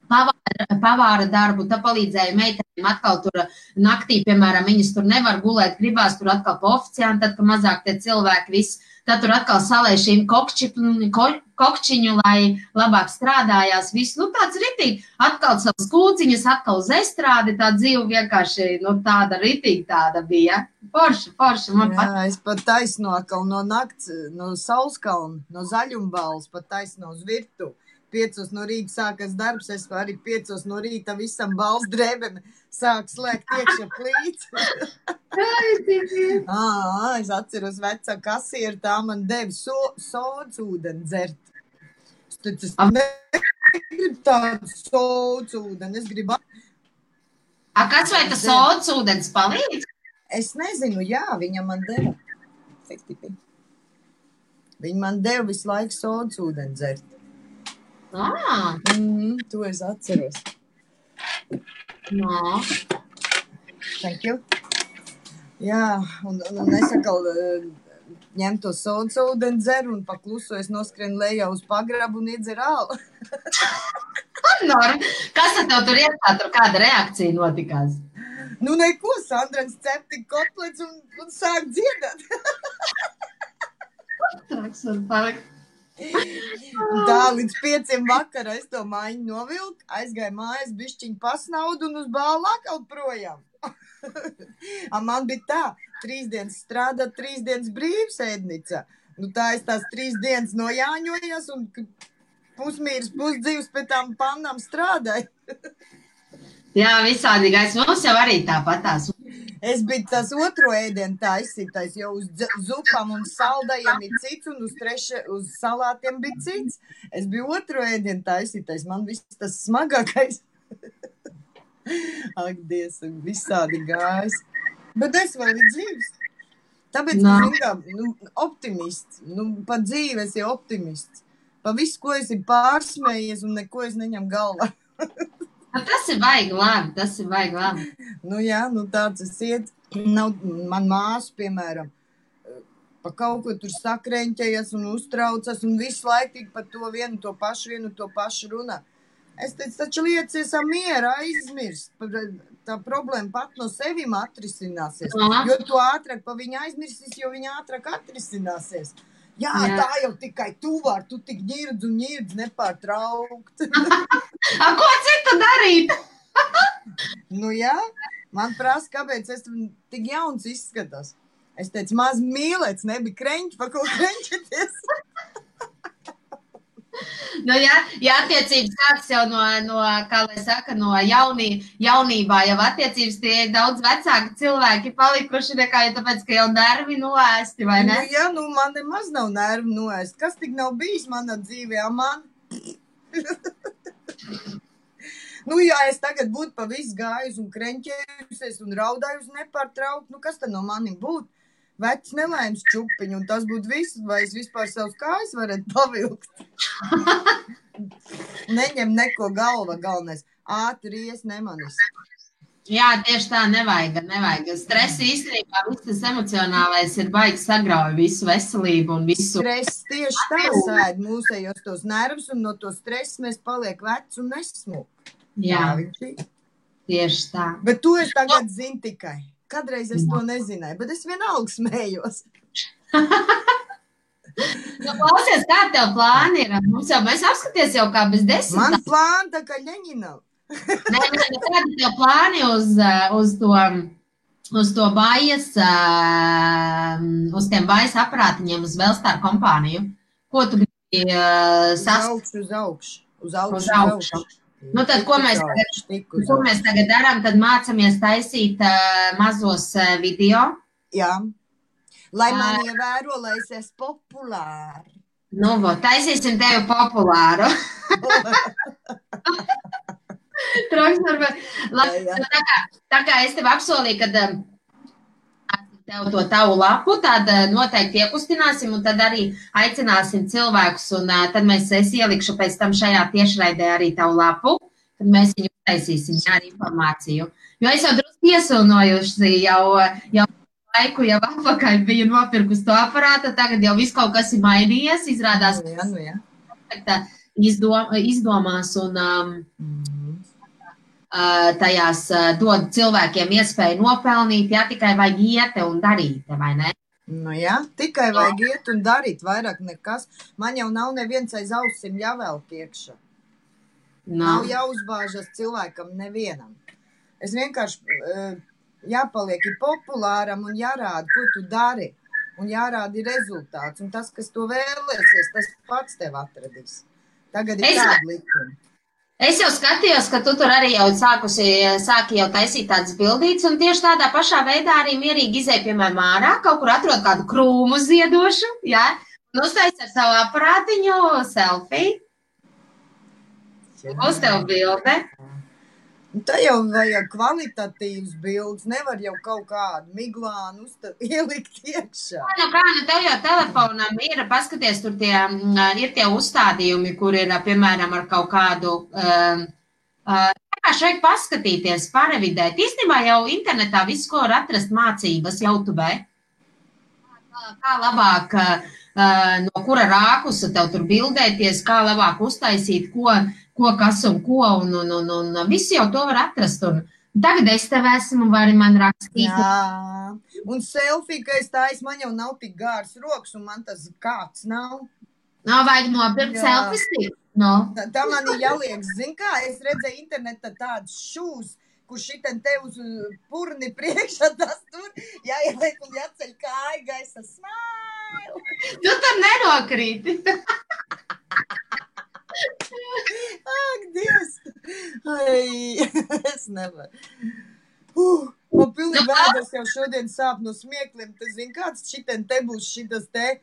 pavāra darbu, tā palīdzēja meitenēm atkal tur naktī, piemēram, viņas tur nevar gulēt, gribās tur atkal pa oficiāni, tad, ka mazāk tie cilvēki viss, tad tur atkal salēj šīm kokčiņu, lai labāk strādājās, viss, nu tāds ritīgi, atkal savas kūciņas, atkal uz estrādi, tā dzīve vienkārši, nu tāda ritīgi tāda bija. Forši, man pat. Jā, es pat taisno atkal no nakts, no Saulskalna, no Zaļumbāles, pat taisno uz virtu. 5 no rīta sākas darbs, es arī 5 no rīta visam bals drēbēm sāk slēgt iekšā plīts. Es atceros vecā kasieru, tā man deva sodas ūdeni dzert. Es negribu tādu sodas ūdeni, es gribu... Kas vai tas sodas ūdens palīdz? Es nezinu, jā, viņa man deva. Viņa man deva visu laiku sodas ūdeni dzert. To es atceros. No. Thank you. Jā, un es atkal ņem to sodas ūdeni dzeru un pakluso es noskrienu lejā uz pagrabu un iedzeru ālu. Kas tev tur ietā, tur kāda reakcija notikās? Nu neko, Sandrens cep tik kotlets un sāk dziedāt. Traks un palikt. Tā līdz 5 vakarā es to mājiņu novilku, aizgāju mājās, bišķiņu pasnaudu un uz bālu atkal projām. Man bija tā, 3 dienas strādāt, 3 dienas brīvs ēdnicā. Nu tā es tās 3 dienas nojāņojos un pusmīras, pusdzīvs pēc tām pannām strādāju. Jā, visādīgais. Mums jau arī tāpatās. Es biju tas otro ēdienu taisītais, jo uz zupām un saldajiem ir cits, un uz salātiem bija cits. Es biju otro ēdienu taisītais, man viss tas smagākais. Ak, Dievs, visādi gājis. Bet es vēl ir dzīves. Tāpēc, optimists, pa dzīvi esi optimists. Pa visu, ko esi pārsmējies un neko es neņem galvā. Tas ir baigi labi, Nu jā, tāds es iet. Man māsu, piemēram, pa kaut ko tur sakreņķējas un uztraucas un visu laiku tik par to vienu to pašu runā. Es teicu, taču liecies miera aizmirst. Tā problēma pat no sevim atrisināsies. Jo tu ātrāk pa viņu aizmirsīs, jo viņa ātrāk atrisināsies. Jā, tā jau tikai tu vari, tu tik ņirdz nepārtraukt. Ko citu darīt? Nu jā, man prasa, kāpēc es tik jauns izskatās. Es teicu, maz mīlēts, nebija kreņķi, pa ko kreņķeties. Nu jā, attiecības sāks jau no kā lai saka, no jaunībā, jau attiecības tie daudz vecāki cilvēki palikuši nekā, jo tāpēc, ka jau nervi noēsti, vai ne? Nu jā, man nemaz nav nervi noēsti. Kas tik nav bijis manā dzīvē, man? Nu jā, es tagad būtu pa visu gājusi un kreņķējusies un raudājusi nepārtraukt, kas tad no manim būtu? Vecs nelaimes čupiņu, un tas būtu viss, vai es vispār savus kājas varētu pavilkt. Neņem neko galva galvenais. Ātri ies nemanis. Jā, tieši tā, nevajag. Stress īstenībā, viss tas emocionālais ir baigi sagrauj visu veselību un visu. Stress tieši tā sēd mūsējos tos nervus, un no to stresa mēs paliek veci un nesmuk. Jā, tieši tā. Bet to es tagad zinu tikai. Kadreiz es to nezināju, bet es vienalga smējos. Klausies, kā tev plāni ir? Mēs apskaties jau kā bez 10. Man plāni tā kā Ļeņinam. Kādi tev plāni uz to bajas, uz tiem bajas aparātiņiem, uz Belstar kompāniju? Ko tu gribi Uz augšu. Nu tad, ko mēs tagad darām, tad mācamies taisīt mazos video. Jā, lai man ievēro, lai es esmu populāri. Nu, taisīsim tevi populāru. Tā kā es tev apsolīju, kad tev to tavu lapu, tad noteikti iekustināsim un tad arī aicināsim cilvēkus un tad es ielikšu pēc tam šajā tiešraidē arī tavu lapu, tad mēs viņu taisīsim ar informāciju. Jo es jau drusku iesilnojuši jau laiku, jau atpakaļ biju nopirkus to aparātu, tagad jau viss kaut kas ir mainījies, izrādās izdomās un tajās dod cilvēkiem iespēju nopelnīt, ja tikai vajag iet un darīt, vai ne? Nu jā, tikai vajag iet un darīt, vairāk nekas. Man jau nav neviens aiz ausim jāvelk iekšā. Nav jāuzbāžas cilvēkam nevienam. Es vienkārši jāpaliek populāram un jārāda, ko tu dari. Un jārāda rezultāts. Un tas, kas to vēlēsies, tas pats tev atradīs. Tagad ir tāda likuma. Es jau skatījos, ka tu tur arī jau sāki jau taisīt tādas bildītes, un tieši tādā pašā veidā arī mierīgi izēja, piemēram, ārā, kaut kur atrod kādu krūmu ziedošu, jā, un uztais ar savu aparātiņu selfiju. Uz tev bilde. Tā jau vajag kvalitatīvs bildes, nevar jau kaut kādu miglānu ielikt iekšā. Nu, tev jau telefonam ir, paskaties, tur ir tie uzstādījumi, kur ir, piemēram, ar kaut kādu, kā šeit paskatīties, parevidēt. Īstenībā jau internetā visu, ko var atrast mācības YouTube. Kā labāk, no kura rākusa tev tur bildēties, kā labāk uztaisīt, ko, kas un ko, un visi jau to var atrast. Un tagad es tev esmu, vari man rakstīt. Jā, un selfie, ka es tājas, man jau nav tik gārs rokas, un man tas kāds nav. Nav vajag nopirkt selfie stiku. No. Tā man ir jāliek, zin kā, es redzēju internetā tādus šūs, kur šitien te uz purni priekšā tas tur, jāieliek un jāceļ kāja gaisa, smile. Tu tur nenokrīti. Ak, Dievs! Ai, es nevaru. Man pilnīgi vēders jau šodien sāp no smiekliem. Tu zini, kāds šitien te būs šitas te,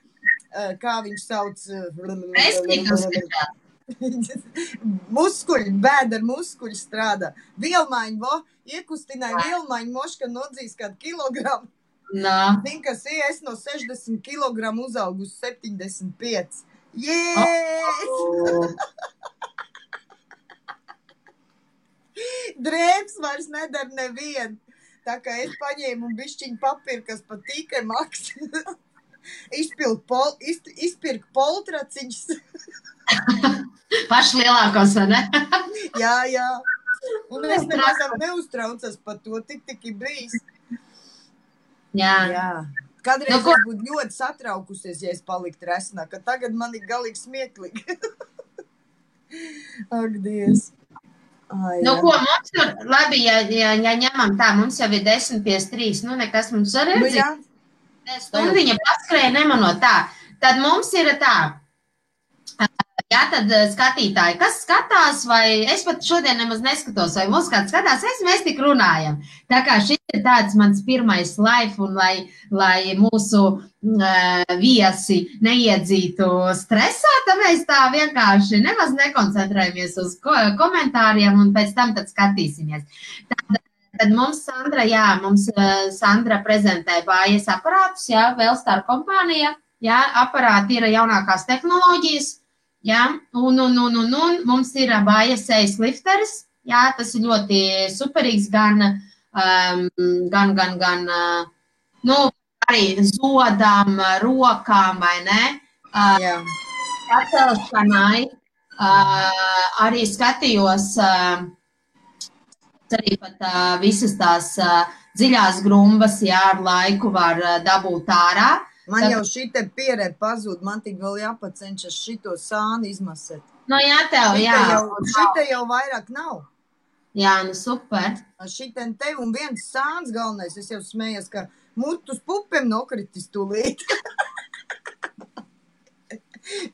kā viņš sauc? Muskuļi, bēdar muskuļi strādā. Vielmaiņu, iekustināja vielmaiņu moška nodzīs kādu kilogramu. Zini, kas ir, es no 60 kilogramu uzaugu uz 75. Yes! Drēbs vairs nedara nevienu. Tā kā es paņēmu un bišķiņu papīru, kas pat tīkai maks. Izpirku poltraciņus. Paši lielākos, vai ne? Jā. Un es nemazam neuztraucas par to, tik ir bijis. Jā. Kādreiz es būtu ļoti satraukusies, ja es paliktu resnā, ka tagad man ir galīgi smieklīgi. Ak, Dievs. Ai, nu, ko mums tur, labi, ja ņemam tā, mums jau ir 10:53, nu, nekas mums arī ir dzīvi. Stundiņa paskrēja nemanot tā. Tad mums ir tā. Jā, tad skatītāji, kas skatās, vai es pat šodien nemaz neskatos, vai mūs kāds skatās, mēs tik runājam. Tā kā šis ir tāds mans pirmais live, un lai mūsu viesi neiedzītu stresā, tad mēs tā vienkārši nemaz nekoncentrējamies uz komentāriem, un pēc tam tad skatīsimies. Tad mums Sandra prezentē bājas aparātus, jā, Velstar kompānija, jā, aparāti ir jaunākās tehnoloģijas. Jā, un mums ir bājas sejas lifteris, jā, tas ir ļoti superīgs, nu, arī zodām, rokām, vai ne? Jā. Pacelšanai, arī skatījos, arī pat visas tās dziļās grumbas, jā, ar laiku var dabūt ārā. Man jau šite pierē pazūd, man tik vēl jāpacenšas šito sāni izmasēt. No jā, tev, jā. Šite jau vairāk nav. Jā, nu super. Šiten te un viens sāns galvenais, es jau smējos, ka mutus pupiem nokritis tūlīt.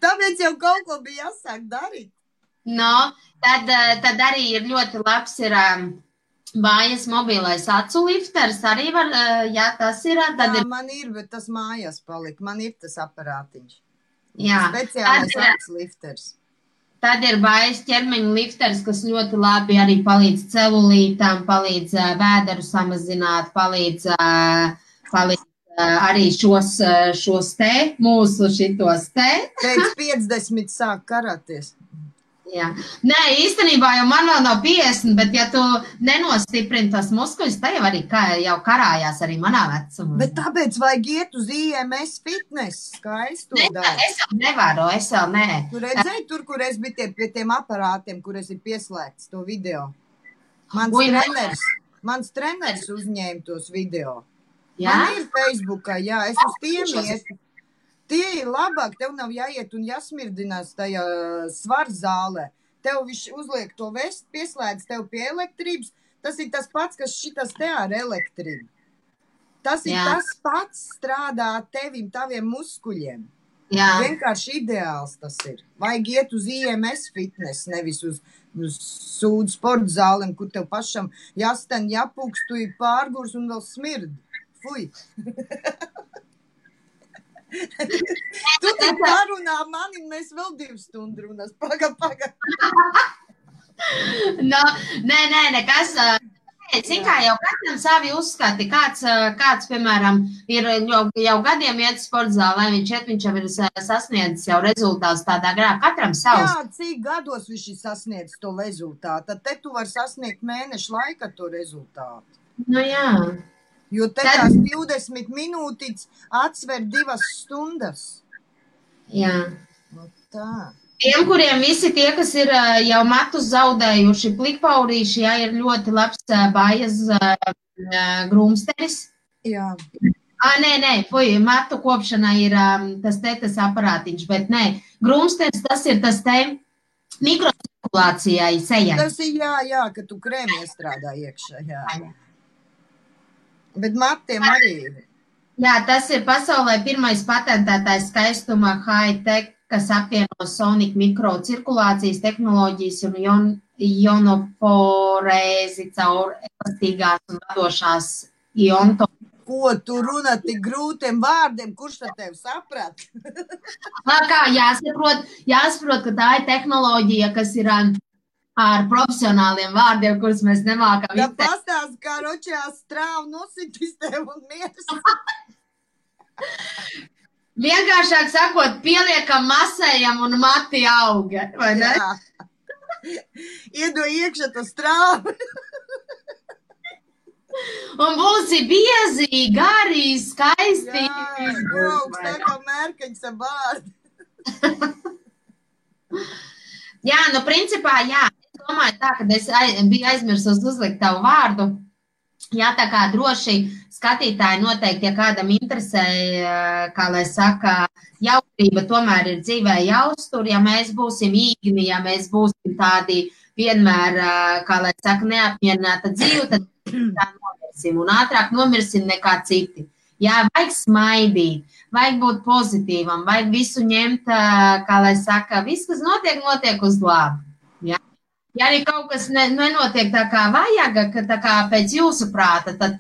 Tāpēc jau kaut ko bija jāsāk darīt. No, tad arī ir ļoti labs ir... Bājas mobilais acu lifters arī var, jā, tas ir. Jā, man ir, bet tas mājās palika. Man ir tas aparātiņš. Jā. Speciālais acu lifters. Tad ir bājas ķermeņa lifters, kas ļoti labi arī palīdz celulītām, palīdz vēderu samazināt, palīdz arī šos te, mūsu šitos te. Pēc 50 sāk karāties. Jā. Nē, īstenībā jau man vēl nav 50, bet ja tu nenostiprini tos muskuļus, tā jau arī jau karājās arī manā vecumā. Bet tāpēc vajag iet uz IMS fitness, kā es to daru. Es jau nevaru, es jau nē. Tu redzēji tur, kur es biju pie tiem aparātiem, kur es ir pieslēgts to video? Mans treneris uzņēma tos video. Jā? Man ir Facebookā, jā, es uz tiem ietu. Tie ir labāk, tev nav jāiet un jāsmirdinās tajā svarzālē. Tev viņš uzliek to vestu, pieslēdz tev pie elektrības. Tas ir tas pats, kas šitas te ar elektrību. Tas ir tas pats strādā tevim, taviem muskuļiem. Jā. Vienkārši ideāls tas ir. Vajag iet uz IMS fitness, nevis uz sūdu sporta zālēm, kur tev pašam jāsten, jāpūkst, tu ir pārgurs un vēl smird. Fui! Tu te parunā mani, mēs vēl 2 stundu runās. Paga. No, nē, nekas. Zin kā, jau katram savi uzskati. Kāds, piemēram, ir jau gadiem iet sporta zālē, viņš jau ir sasniedzis jau rezultātus tādā garā. Katram savs. Jā, cik gados viņš ir sasniedzis to rezultātu? Tad te tu var sasniegt mēnešu laika to rezultātu. Nu jā. Jo te tās 20 minūtītes atsver 2 stundas. Jā. No tā. Tiem, kuriem visi tie, kas ir jau matus zaudējuši plikpaurīši, jā, ir ļoti labs Bajas grūmsteris. Jā. Nē, matu kopšanai ir tas aparātiņš, bet nē, grūmsteris tas ir tas te mikrocirkulācijai sejai. Tas ir jā, ka tu krēmi iestrādā iekšā, jā. Bet matiem arī ir. Jā, tas ir pasaulē pirmais patentētais skaistuma high-tech, kas apvieno Sonic mikrocirkulācijas tehnoloģijas un ionoforēzi caur elastīgās un vadošās ionto. Ko tu runā tik grūtiem vārdiem, kurš tad tev saprat? Kā jāsaprot, ka tā ir tehnoloģija, kas ir ar profesionāliem vārdiem, kurus mēs nemākam. Jā, pastāst, kā ročajā strāvu nositis tev un miers. Vienkāršāk sakot, pieliekam, masējam un mati auga, vai ne? Jā. Iedo iekšā to strāvu. Un būsi biezi, gari, skaisti. Jā, tā kā mērkaņas ar bārdi. Jā, nu principā, jā. Es domāju tā, ka es biju aizmirsus uzlikt tavu vārdu. Jā, tā kā droši skatītāji noteikti, ja kādam interesē, kā lai saka, jautrība tomēr ir dzīvē jāuztur, ja mēs būsim īgni, ja mēs būsim tādi vienmēr, kā lai saka, neapmierināta dzīve, tad tā nomirsim un ātrāk nomirsim nekā citi. Jā, vajag smaidīt, vajag būt pozitīvam, vajag visu ņemt, kā lai saka, viss, kas notiek uz labu. Jā. Ja arī kaut kas nenotiek tā kā vajag, tā kā pēc jūsu prāta, tad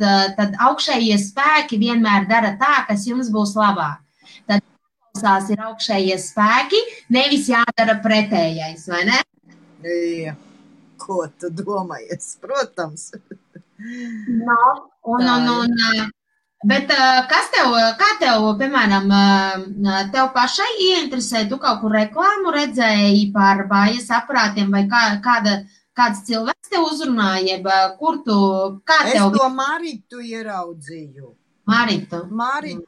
augšējie spēki vienmēr dara tā, kas jums būs labāk. Tad jāklausās ir augšējie spēki, nevis jādara pretējais, vai ne? Jā, ko tu domājies, protams. Bet kā tev, piemēram, tev pašai ieinteresē, tu kaut kur reklāmu redzēji par Bajas aparātiem vai kāds cilvēks tev uzrunāja, Es to Maritu ieraudzīju. Maritu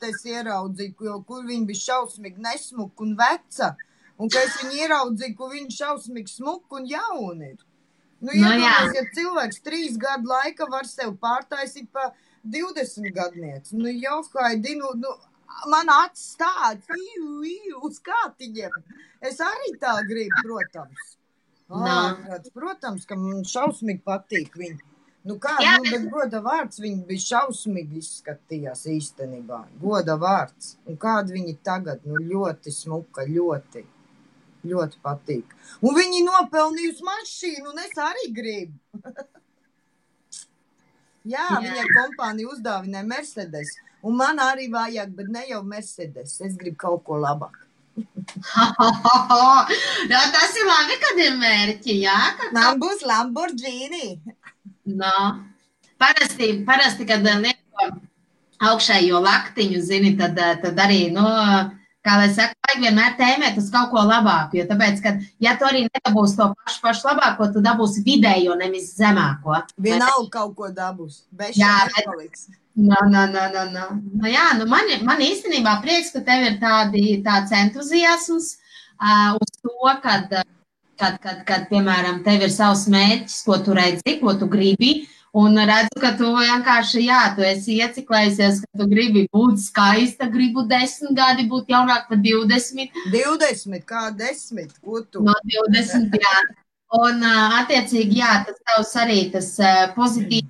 es ieraudzīju, kur viņa bija šausmīgi nesmuka un veca, un ka es viņu ieraudzīju, kur viņa šausmīgi smuka un jauna ir. Ja cilvēks 3 gadu laika var sev pārtaisīt pa 20 gadnieci. Johaidi, man acis tāds, uz kātiņiem. Es arī tā gribu, protams. Protams, ka man šausmīgi patīk viņi. Bet goda vārds, viņi bija šausmīgi izskatījās īstenībā. Goda vārds. Un kādi viņi tagad, ļoti smuka, ļoti patīk. Un viņi nopelnījusi mašīnu, un es arī gribu. Jā, viņai kompānija uzdāvināja Mercedes, un man arī vajag, bet ne jau Mercedes, es gribu kaut ko labāk. Tas ir labi, kad ir mērķi, jā? Man būs Lamborghini. Parasti, kad lieto augšējo laktiņu, zini, tad arī, kā lai saka, vajag vienmēr tēmēt uz kaut ko labāku, jo tāpēc, ka, ja tu arī nedabūsi to pašu labāko, tu dabūsi vidējo, nevis zemāko. Vienalga kaut ko dabūs, beši nepaliks. Jā, man īstenībā prieks, ka tev ir tāds entuziasms uz to, kad, piemēram, tev ir savs mērķis, ko tu redzi, ko tu gribi, un redzu, ka tu vienkārši, tu esi ieciklējusies, ka tu gribi būt skaista, gribu 10 gadi būt jaunāk par 20. 20, kā 10, ko tu? No 20, jā. Un, attiecīgi, tas tavs arī tas pozitīvi,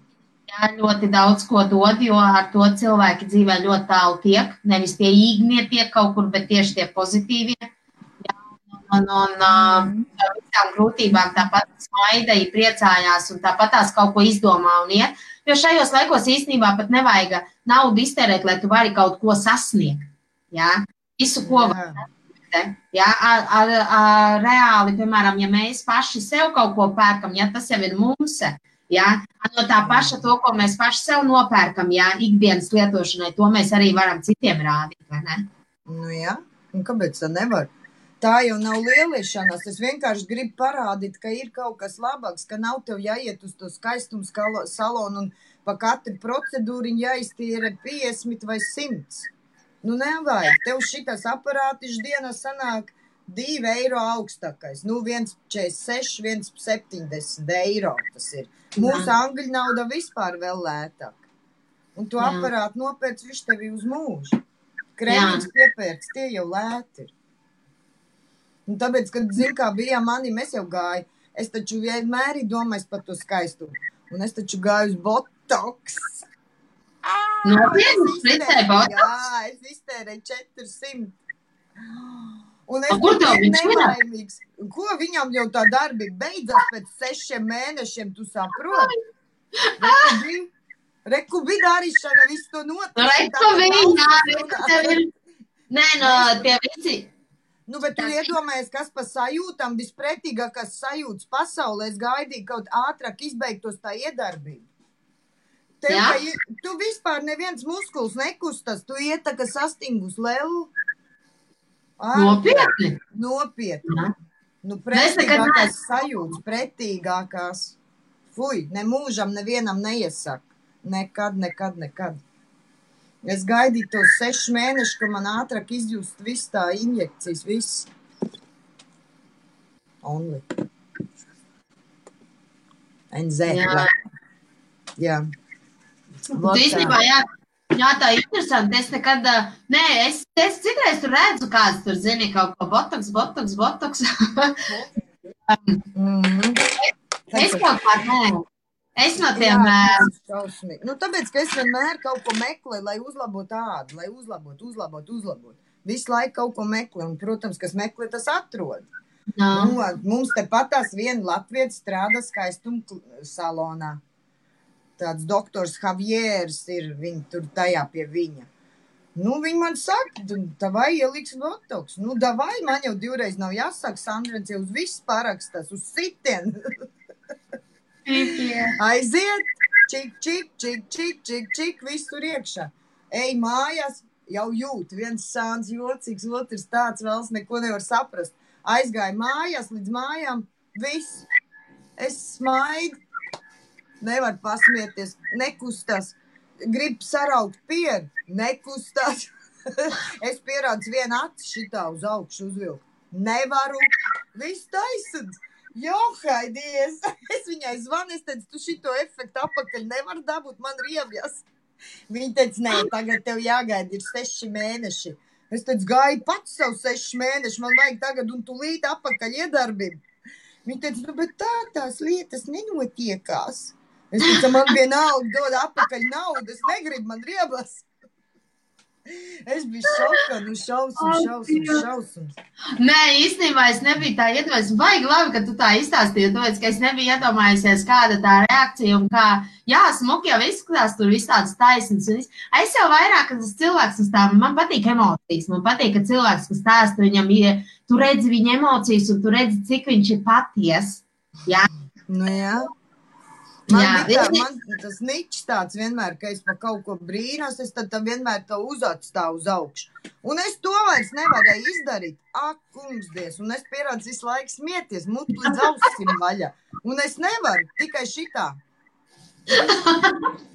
ļoti daudz ko dod, jo ar to cilvēki dzīvē ļoti tālu tiek. Nevis tie īgnie tiek kaut kur, bet tieši tie pozitīvie. Un visām grūtībām tāpat smaidēja, priecājās un tāpat tās kaut ko izdomā un iet. Jo šajos laikos īstenībā pat nevajag naudu iztērēt, lai tu vari kaut ko sasniegt. Jā? Visu, ko var sasniegt. Jā? Reāli, piemēram, ja mēs paši sev kaut ko pērkam, tas jau ir mums. Jā? No tā paša to, ko mēs paši sev nopērkam, ikdienas lietošanai, to mēs arī varam citiem rādīt, vai ne? Nu jā, un kāpēc tā nevar? Tā jau nav lieliešanās, es vienkārši gribu parādīt, ka ir kaut kas labāks, ka nav tev jāiet uz to skaistumu salonu un pa katru procedūru jāiztīra 50 vai 100. Nu nevajag, tev šitas aparātiņš dienā sanāk 2 eiro augstākais, 1,46, 1,70 eiro tas ir. Mūsu angļu nauda vispār vēl lētāk. Un tu aparātu nopērc, viņš tevi uz mūžu. Krēmīgs piepērts, tie jau lēti ir. Un tāpēc, kad, zin, kā bija mani, mēs jau gāju, es taču vienmēr domāju par to skaistumu. Un es taču gāju uz botoks. Jā, es iztērēju 400. Un es biju nelaimīgs. Ko viņam jau tā darbība beidzās pēc 6 mēnešiem, tu saproti? Reku bija darīšana, visu to notiek. Reku viņa, nē, no tie visi. Nu, bet tu iedomājies, kas pa sajūtam, vispretīgākās sajūtas pasaulē, es gaidīju kaut ātrāk izbeigtos tā iedarbība. Tu vispār neviens muskuls nekustas, tu iet tā, ka sastingus lelu. Nopietni? Nopietni. Nu, pretīgākās sajūtas, pretīgākās. Fuj, ne mūžam nevienam neiesaka. Nekad. Es gaidīju tos 6 mēnešus, ka man ātrāk izjust viss tā injekcijas, viss. Only. NZ. Jā. Tu īstenībā, tā ir interesanti. Es nekad, es citreiz tur redzu kāds tur, zini, kaut ko botoks. Es kaut kā, Es no tiem... Nu, tāpēc, ka es vienmēr kaut ko meklēju, lai uzlabotu ādu, lai uzlabotu. Visu laiku kaut ko meklēju, un, protams, kas meklē, tas atrod. Nu, mums te patās viena latvietis strādā skaistumu salonā. Tāds doktors Javieris ir, viņi tur tajā pie viņa. Nu, viņi man saka, davai ieliks botoks. Nu, davai, man jau 2 reiz nav jāsaka, Sandrens jau uz visu parakstās, uz sitienu. Aiziet, čik, viss tur iekšā. Ej mājās, jau jūt, viens sāns jocīgs, otrs tāds vēls neko nevar saprast. Aizgāju mājās, līdz mājām, viss. Es smaidu, nevar pasmieties, nekustās. Gribu saraukt pieru, nekustās. Es pierādzu vienu aci šitā uz augšu uzvilku. Nevaru, viss taisad. Johaidies! Es viņai zvanu, es teicu, tu šito efektu apakaļ nevar dabūt, man riebjas. Viņa teica, nē, tagad tev jāgaida, ir 6 mēneši. Es teicu, gāju pats savu 6 mēneši, man vajag tagad un tulīt apakaļ iedarbību. Viņa teica, nu, bet tās lietas nenotiekās. Es teicu, man vienalga dod apakaļ naudu, es negribu, man riebas. Es biju šokā, nu šausums. Nē, īstenībā es nebiju tā iedomājusies. Baigi labi, ka tu tā izstāstīji, tāpēc, ka es nebiju iedomājusies, kāda tā reakcija un kā, smuki jau izskatās, tur viss tāds taisns. Es jau vairāk, kad tas cilvēks stāv, man patīk emocijas, man patīk, ka cilvēks, kas stāsta, viņam ir, tu redzi viņa emocijas un tu redzi, cik viņš ir paties. Jā. Nu jā. Man tas niķis tāds vienmēr, ka es pa kaut ko brīnos, es tad vienmēr to uzatstāvu uz augšu. Un es to vairs nevarēju izdarīt. Ak, kungsdies, un es pierādzu visu laiku smieties, mutu līdz ausim vaļā. Un es nevaru, tikai šitā.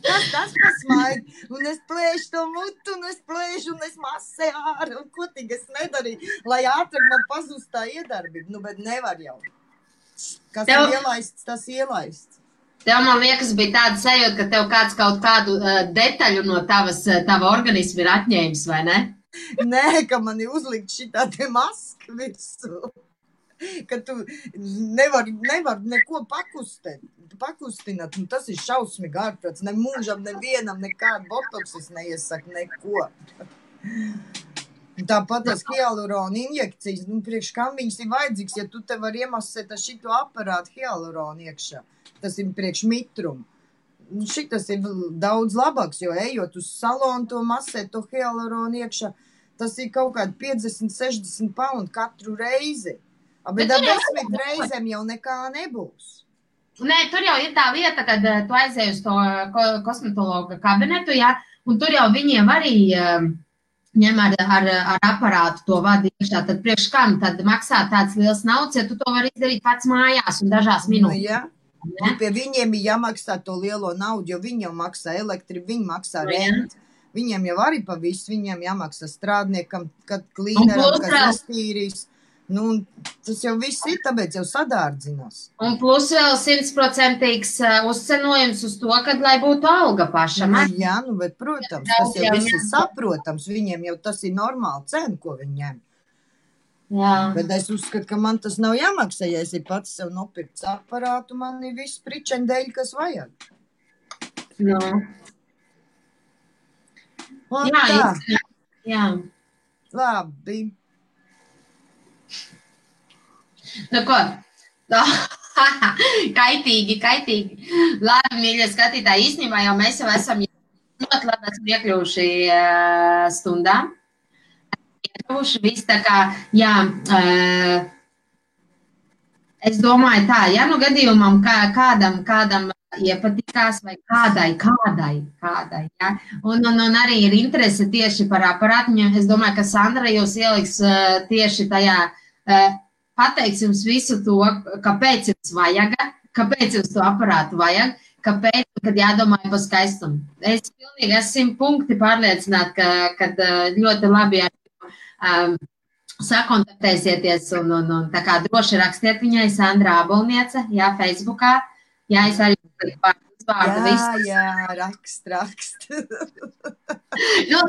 Tas pasmaid, un es plēšu to mutu, un es masē ārā, un ko tik es nedarīju, lai ātrāk man pazūst tā iedarbība. Nu, bet nevar jau. Kas ir ielaists, tas ielaists. Tev, man liekas, bija tāda sajūta, ka tev kāds kaut kādu detaļu no tava organisma ir atņēmis, vai ne? Nē, ka man ir uzlikt šitā te maska visu. Ka tu nevar neko pakustināt. Tas ir šausmīgi ārprāts. Ne mūžam, nevienam, nekādu botoksis neiesaka neko. Tāpat tas hialurona injekcijas, priekš kam viņas ir vajadzīgs, ja tu te var iemasēt ar šito aparātu hialuronu iekšā. Tas ir priekš mitrumu. Šitas ir daudz labāks, jo ejot uz salonu to masēt, to hialuronu iekšā, tas ir kaut kādi 50-60 paundi katru reizi. Bet ar 10 reizēm jau nekā nebūs. Nē, tur jau ir tā lieta, kad tu aizēji uz to kosmetologa kabinetu, ja, un tur jau viņiem arī ņem ar aparātu to vadu iekšā, tad priekš kam tad maksā tāds liels naudas, ja tu to vari izdarīt pats mājās un dažās minūtes. Ja? Pie viņiem ir jāmaksā to lielo naudu, jo viņi jau maksā elektribu, viņi maksā rentu. Viņiem jau arī pa visu, viņiem jāmaksā strādniekam, kad klīneram, kas iztīrīs. Tas jau viss ir, tāpēc jau sadārdzinās. Un plus vēl 100% uzcenojums uz to, kad lai būtu alga pašam. Jā, bet, protams, tas jau viss ir saprotams. Viņiem jau tas ir normāli cena, ko viņi ņem. Jā. Bet es uzskatu, ka man tas nav jāmaksā, ja es ir pats sev nopirkts aparātu, man ir viss pričendēļ, kas vajag. No. Jā. Labi. Nu ko? Kaitīgi. Labi, mīļie skatītāji, īstenībā jau mēs jau esam ļoti labi esam iekļuvuši stundā. Iekļuvuši viss tā kā, jā, es domāju tā, ja nu gadījumam kādam iepatikās vai kādai, ja? Un arī ir interese tieši par aparātiņu. Es domāju, ka Sandra jūs ieliks tieši tajā, pateiks jums visu to, kāpēc jums vajag, kāpēc jums to aparātu vajag, kāpēc, kad jādomāja par skaistumu. Es pilnīgi esmu 100 punkti pārliecināta, ka ļoti labi sakontaktēsieties un tā kā droši rakstiet viņai Sandra Abolniece, jā, Facebookā. Jā, es arī vārdu visu. Jā, rakst.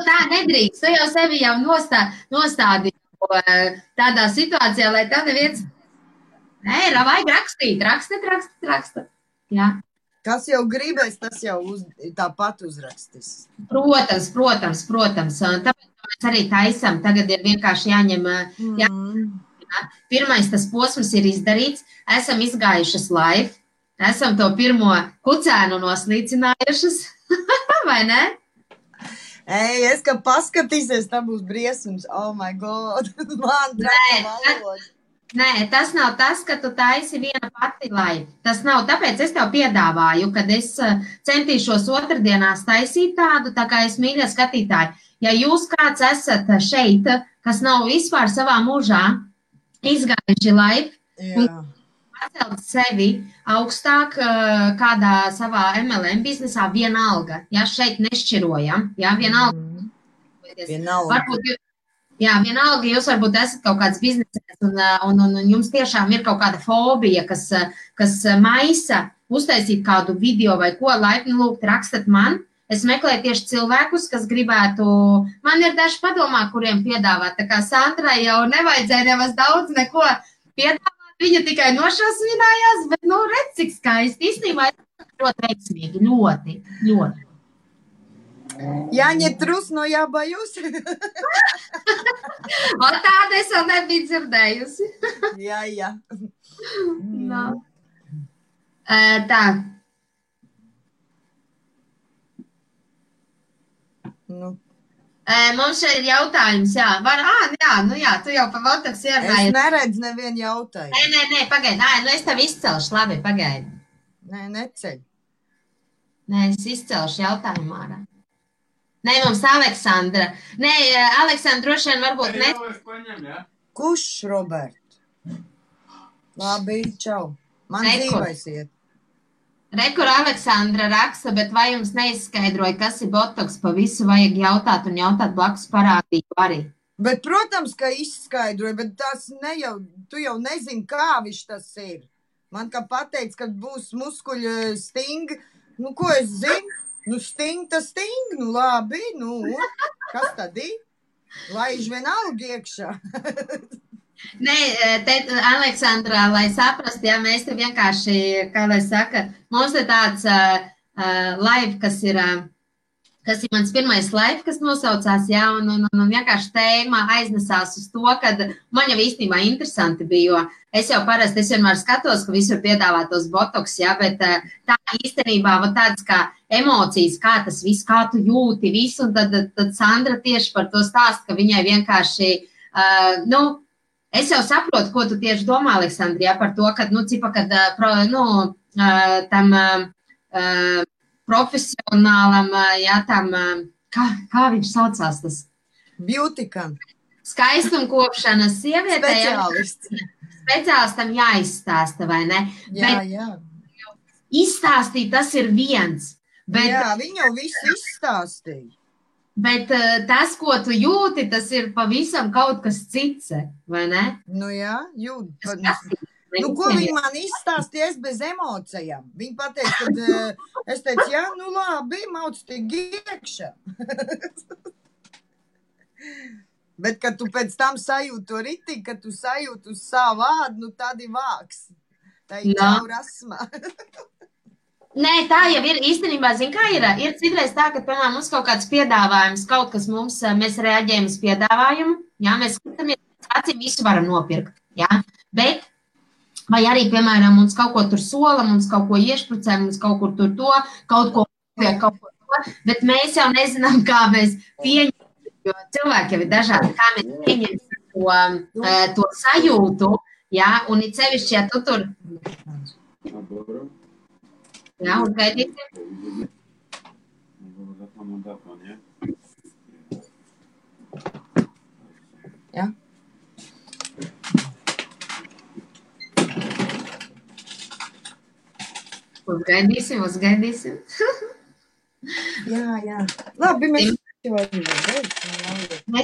Tā nedrīkst, tu jau sevi jau nostādi tādā situācijā, lai tev neviens... Nē, vajag rakstīt. Jā. Kas jau gribēs, tas jau tāpat uzrakstīs. Protams. Tāpēc mēs arī taisam. Tagad ir vienkārši jāņem... Pirmais tas posms ir izdarīts. Esam izgājušas live. Esam to pirmo kucēnu noslīcinājušas. Vai ne? Es, ka paskatīsies, tā būs briesums. Oh my God. Man traka valoda. Nē, tas nav tas, ka tu taisi viena pati live. Tas nav, tāpēc es tev piedāvāju, kad es centīšos otrdienās taisīt tādu, tā kā es mīļie skatītāji. Ja jūs kāds esat šeit, kas nav vispār savā mūžā izgājuši live un pacelt sevi augstāk kādā savā MLM biznesā, vienalga. Ja, šeit nešķirojam. Ja, vienalga. Varbūt, vienalga jūs varbūt esat kaut kāds biznesēs un jums tiešām ir kaut kāda fobija, kas maisa uztaisīt kādu video vai ko, laipni lūgt rakstat man. Es meklēju tieši cilvēkus, kas gribētu, man ir daži padomā, kuriem piedāvāt. Tā kā Sandrai jau nevajadzēja nemaz daudz neko piedāvāt. Viņa tikai nošausminājās, bet, redz, cik skaisti. Īstenībā ļoti veiksmīgi, ļoti. Jāņem trusno jābajus. Tāda es vēl nebiju dzirdējusi. Jā. No. Tā. Mums šeit ir jautājums, jā. Tu jau pa Botoks ierunāji. Es neredzu nevienu jautājumu. Nē, pagaidi. Es tev izcelšu, labi, pagaidi. Nē, neceļ. Nē, es izcelšu jautājumu ārā. Nē, mums Aleksandra. Nē, Aleksandra droši vien varbūt ne. Kurš, Robert? Labi, čau. Man dzīvais iet. Rekur Aleksandra raksta, bet vai jums neizskaidroja, kas ir botoks, pa visu vajag jautāt un jautāt blakus parādību arī? Bet, protams, ka izskaidroja, bet tas tu jau nezini, kā viņš tas ir. Man kā pateica, ka būs muskuļu sting. Nu, ko es zinu? Nu, sting, tas sting. Nu, labi, nu, kas tad ir? Laiž vienalga iekšā. Nē, te, Aleksandrā, lai saprastu, ja mēs te vienkārši, kā lai saka, mums ir tāds live, kas ir mans pirmais live, kas nosaucās, jā, un vienkārši tēma aiznesās uz to, kad man jau īstenībā interesanti bija, jo es jau parasti, es vienmēr skatos, ka visur piedāvā tos botoks, jā, bet tā īstenībā var tādas kā emocijas, kā tas viss, kā tu jūti visu, un tad Sandra tieši par to stāst, ka viņai vienkārši, es jau saprotu, ko tu tieši domā, Aleksandri, jā, par to, kad, cipa, kad, tam profesionālam, jā, tam, kā viņš saucās tas? Beautikam. Skaistumkopšanas sievietē. Speciālistam jāizstāsta, vai ne? Jā. Izstāstīt, tas ir viens. Bet, jā, viņa jau visu izstāstīja. Bet tas, ko tu jūti, tas ir pavisam kaut kas cits, vai ne? Nu jā, jūt. Nu, ko viņa man izstāstīja, es bez emocijām. Viņa pateica, kad es teicu, jā, nu labi, mauc tik iekšā. Bet, kad tu pēc tam sajūti to ritīgi, kad tu sajūti uz savu vārdu, nu tad ir vāks. Tā ir jau rasmā. Nē, tā jau ir īstenībā, zin, kā ir. Ir citreiz tā, ka, piemēram, mums kaut kāds piedāvājums, kaut kas mēs reaģējam uz piedāvājumu, jā, mēs skatāmies, acīm visu varam nopirkt, jā, bet, vai arī, piemēram, mums kaut ko tur sola, mums kaut ko iešprucē, mums kaut kur tur to, kaut ko to, bet mēs jau nezinām, kā mēs pieņemam, jo cilvēki jau ir dažādi, kā mēs pieņemam to sajūtu, jā, un it sevišķi, ja tu tur... Jā, uzgaidīsim. Jā. Uzgaidīsim. Jā. Labi, mēs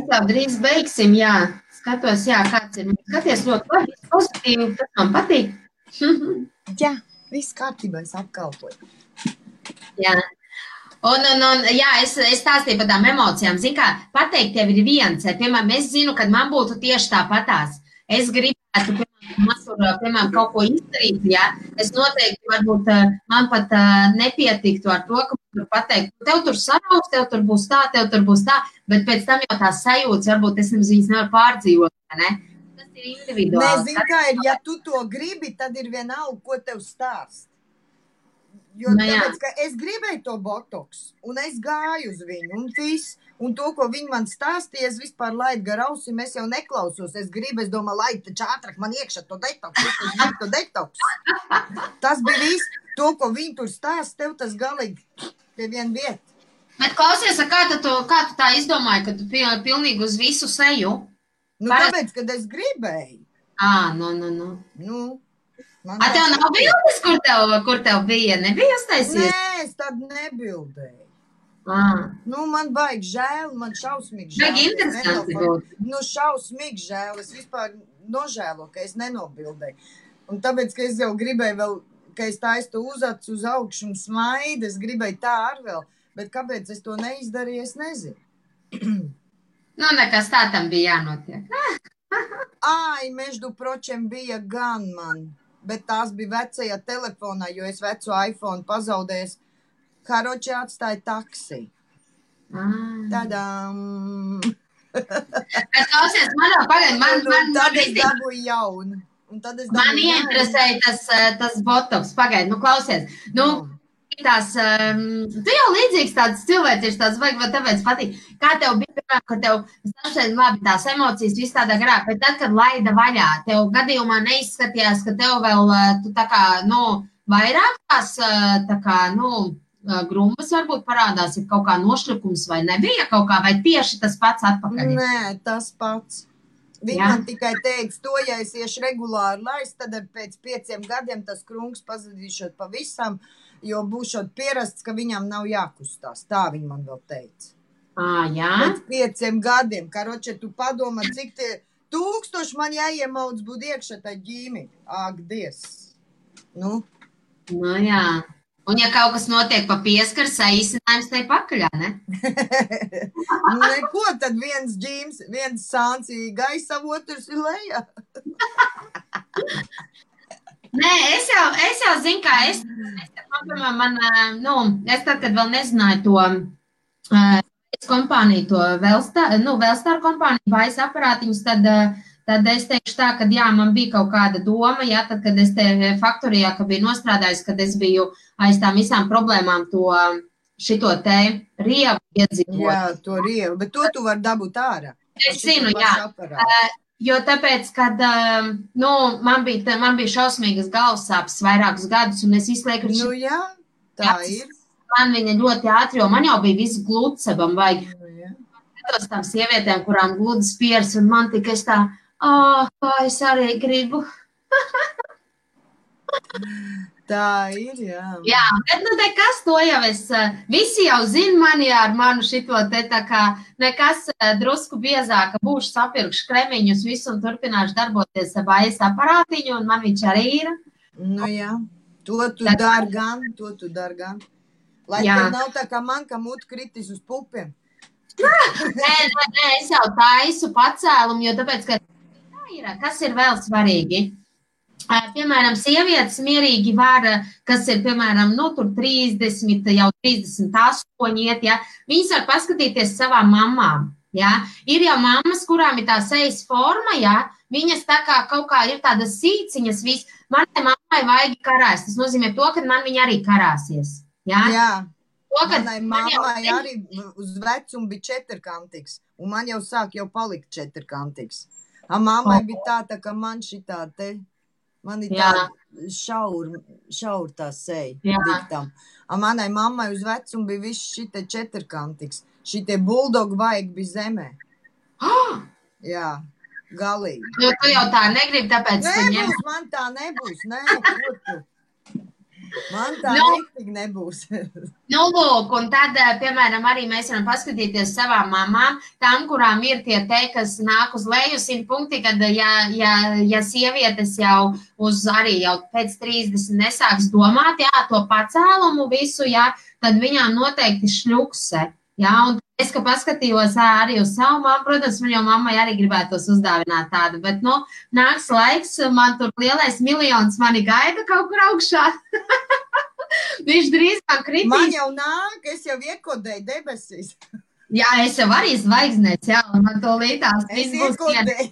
jau drīz beigsim, jā. Skatos, jā, kāds ir. Skaties ļoti labi, pozitīvi, tas man patīk. Jā. Viss kārtībā, es apkalpoju. Jā. Un jā, es stāstīju par tām emocijām. Zin kā, pateikt tev ir viens. Piemēram, es zinu, kad man būtu tieši tāpatās. Es gribētu, piemēram, kaut ko izdarīt, jā. Es noteikti, varbūt, man pat nepietiktu ar to, ka man pateikt, tev tur sarauks, tev tur būs tā, bet pēc tam jau tās sajūtas, varbūt es viņas nevaru pārdzīvot, ne? Nē, zini, kā ir, ja tu to gribi, tad ir vienalga, ko tev stāst. Jo tāpēc, ka es gribēju to botoks, un es gāju uz viņu, un viss, un to, ko viņi man stāstīja, es vispār laidu gar ausim, es jau neklausos, es domāju, laid taču ātrāk man iekšā to detoks. Tas bija viss, to, ko viņi tur stāst, tev tas galīgi pie viena vieta. Bet klausies, kā tu tā izdomāji, ka tu pilnīgi uz visu seju? Nu, tāpēc, kad es gribēju. Nu. Tev nav bildes, kur tev bija? Nebija uztaisies? Nē, es tad nebildēju. Nu, man baigi žēl, man šausmīgi žēl. Baigi interesanti būt. Nu, šausmīgi žēl, es vispār nožēlo, ka es nenobildēju. Un tāpēc, ka es jau gribēju vēl, ka es taistu uzacu uz augšu un smaidu, es gribēju tā ar vēl, bet kāpēc es to neizdarīju, es nezinu. Nu, nekas tā tam bija jānotiek. Ai, meždu pročem bija gan man, bet tās bija vecajā telefonā, jo es veco iPhone pazaudēju. Karoči atstāja taksi. Tadām! Bet klausies, Tad es dabūju jaunu. Man ieinteresēja tas botoks. Pagaid, klausies. Tu jau līdzīgs tāds cilvēks ir tāds, vai tāpēc patīk. Kā tev bija, piemēram, ka tev, labi, tās emocijas viss tādā garā, bet tad, kad laida vaļā, tev gadījumā neizskatījās, ka tev vēl, tu tā kā, vairāk tās, tā kā, grumbas varbūt parādās, ir kaut kā nošļukums vai nebija kaut kā, vai tieši tas pats atpakaļ? Nē, tas pats. Viņi man tikai teiks, to, ja es iešu regulāri laist, tad pēc 5 gadiem tas krungs pazudīšot pavisam, jo būšot pierasts, ka viņam nav jākustās. Tā viņi man vēl teica. Jā? Pēc 5 gadiem. Karoče, tu padomā, cik 1000 man jāiemauc būt iekšā tā ģīmi. Ak, Dievs. Nu, Nu, jā. Un ja kaut kas notiek pa pieskaru, saīsinājums te pakaļā, ne? neko, tad viens sāns ir gaisa, otrs ir lejā. Nē, es jau zinu, kā es tad, kad vēl nezināju to kompāniju, to Velstar kompāniju, vairs aparātiņus, tad es teikšu tā, ka jā, man bija kaut kāda doma, jā, tad, kad es te faktorijā, ka biju nostrādājis, kad es biju aiz tām visām problēmām šito te rievu iedzīvot. Jā, to rievu, bet to tu vari dabūt ārā. Es zinu, jā. Jo tāpēc, kad man bija šausmīgas galvassāpes vairākus gadus, un es izlieku, Nu jā, tā ir. Man viņa ļoti ātri, jo man jau bija viss glūtsebam vajag. Tos tām sievietēm, kurām gludas pieras, un man tikai es tā, kā es arī gribu. Tā ir, jā. Jā, bet nu te kas to jau visi jau zina mani ar manu šito te tā kā nekas drusku biezāka, būšu sapirkšu kremiņus visu un turpināšu darboties vairs aparātiņu, un man viņš arī ir. Nu jā, to tu dar gan. Lai tev nav tā kā man, ka mut kritis uz pupiem. Nē, es jau taisu pacēlumu, jo tāpēc, ka kas ir vēl svarīgi? Piemēram, sievietes mierīgi var, kas ir, piemēram, tur 30, jau 38 iet, ja, viņas var paskatīties savām mamām, ja. Ir jau mammas, kurām ir tā sejas forma, ja, viņas tā kā kaut kā ir tādas sīciņas, manai mammai vajag karās, tas nozīmē to, ka man viņa arī karāsies, ja. Jā. Manai mammai arī uz vecumu bija četrkantīgs, un man jau sāk palikt četrkantīgs. Mammai bija tā kā man šitā te, man ir tā šaur tā seja diktam. Manai mammai uz vecumu bija viss šite četrkantīgs. Šitie buldogi vajag bija zemē. Jā, galīgi. Jo tu jau tā negribi, tāpēc nebūs, man tā nebūs, nē, ko tu? Man tā nektīgi nebūs. Nu, lūk, un tad, piemēram, arī mēs varam paskatīties savām mamām, tām, kurām ir tie te, kas nāk uz leju 100 punkti, kad, ja sievietes jau arī jau pēc 30 nesāks domāt, jā, to pacēlumu visu, jā, tad viņām noteikti šļukse, jā, un es, ka paskatījos arī uz savu mammu, protams, man jau mammai arī gribētos uzdāvināt tādu, bet, nāks laiks, man tur lielais miljons mani gaida kaut kur augšā. Viņš drīzāk kritīs. Man jau nāk, es jau iekodēju debesīs. Jā, es jau arī zvaigznēs, jā, un man to līdās. Es iekodēju.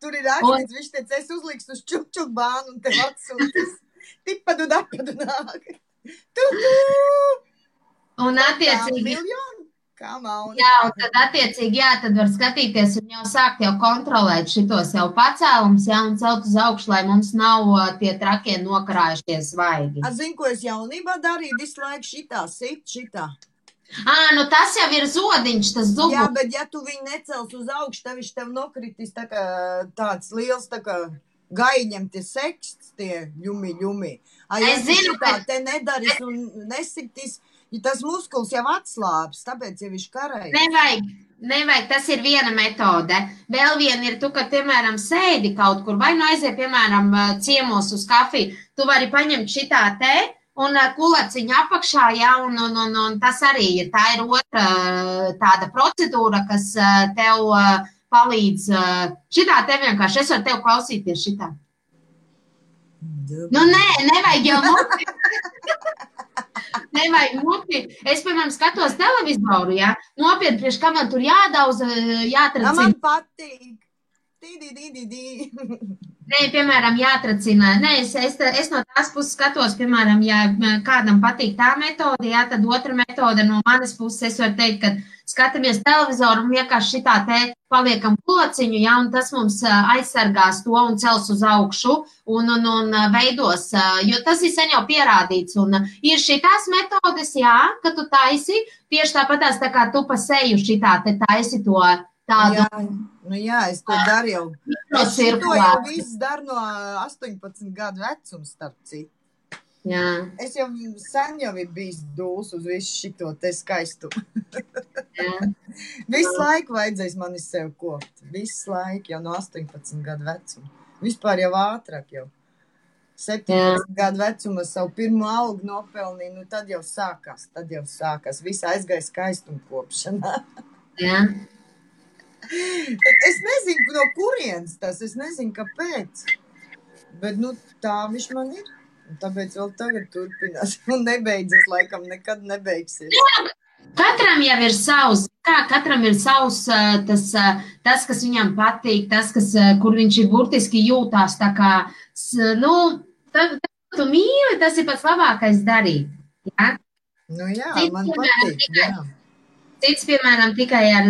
Tur ir rakstīts, viņš teica, es uzlikstu uz čuk bānu un tev atsūtis. Tipadu dapadu nāk. Un attiecīgi. Miljonu? Jā, un tad attiecīgi, jā, tad var skatīties un jau sākt jau kontrolēt šitos jau pacēlums, jā, un celt uz augšu, lai mums nav tie trakie nokarājušies svaigi. Zinu, ko es jaunībā darīju, visu laiku šitā. Nu tas jau ir zodiņš, tas zubulis. Jā, bet ja tu viņu necels uz augšu, tad viņš tev nokritīs tā kā tāds liels, tā kā gaiņem tie seksts, tie ļumi. Ja Es zinu, ka te nedaris un nesitīs, ja tas muskulis jau atslāps, tāpēc jau viņš karēja. Nevajag, tas ir viena metode. Vēl viena ir tu, ka, piemēram, sēdi kaut kur, vai aiziet, piemēram, ciemos uz kafiju, tu vari paņemt šitā te un kulaciņu apakšā, jā, un tas arī ir. Tā ir otra tāda procedūra, kas tev palīdz. Šitā te vienkārši, es varu tev klausīties šitā. Nevajag jau muti. Nevajag muti. Es, piemēram, skatos televizoru, jā. Nopietni, priekš kā man tur jādauza, jātracina. Man patīk. Nē, piemēram, jātracina. Nē, es no tās puses skatos, piemēram, ja kādam patīk tā metode, jā, tad otra metode no manas puses, es varu teikt, ka skatāmies televizoru un vienkārši šitā te paliekam kulaciņu, jā, un tas mums aizsargās to un cels uz augšu un veidos, jo tas ir sen jau pierādīts, un ir šitās metodes, jā, ka tu taisi, tieši tāpatās tā kā tu pa seju šitā te taisi to tādu. Jā, es to daru jau. Es to jau viss daru no 18 gadu vecuma, starp citu. Jā. Es jau sen jau ir bijis dūls uz visu šito te skaistu. Visu laiku vajadzēs mani sev kopt. Visu laiku jau no 18 gadu vecuma. Vispār jau ātrāk jau. 17 gadu vecumā savu pirmo algu nopelnīju, nu tad jau sākās. Visi aizgāja skaistumkopšanā. Jā. Es nezinu, no kurienes tas, es nezinu, kāpēc. Bet, nu, tā viņš man ir. Un tāpēc vēl tagad turpinās. Un nebeidzas, laikam, nekad nebeigsies. Katram jau ir savs, katram ir savs tas, kas viņam patīk, tas, kur viņš ir burtiski jūtās, tā kā, nu, tu mīli, tas ir pats labākais darīt, jā? Nu jā, man patīk, jā. Cits, piemēram, tikai ar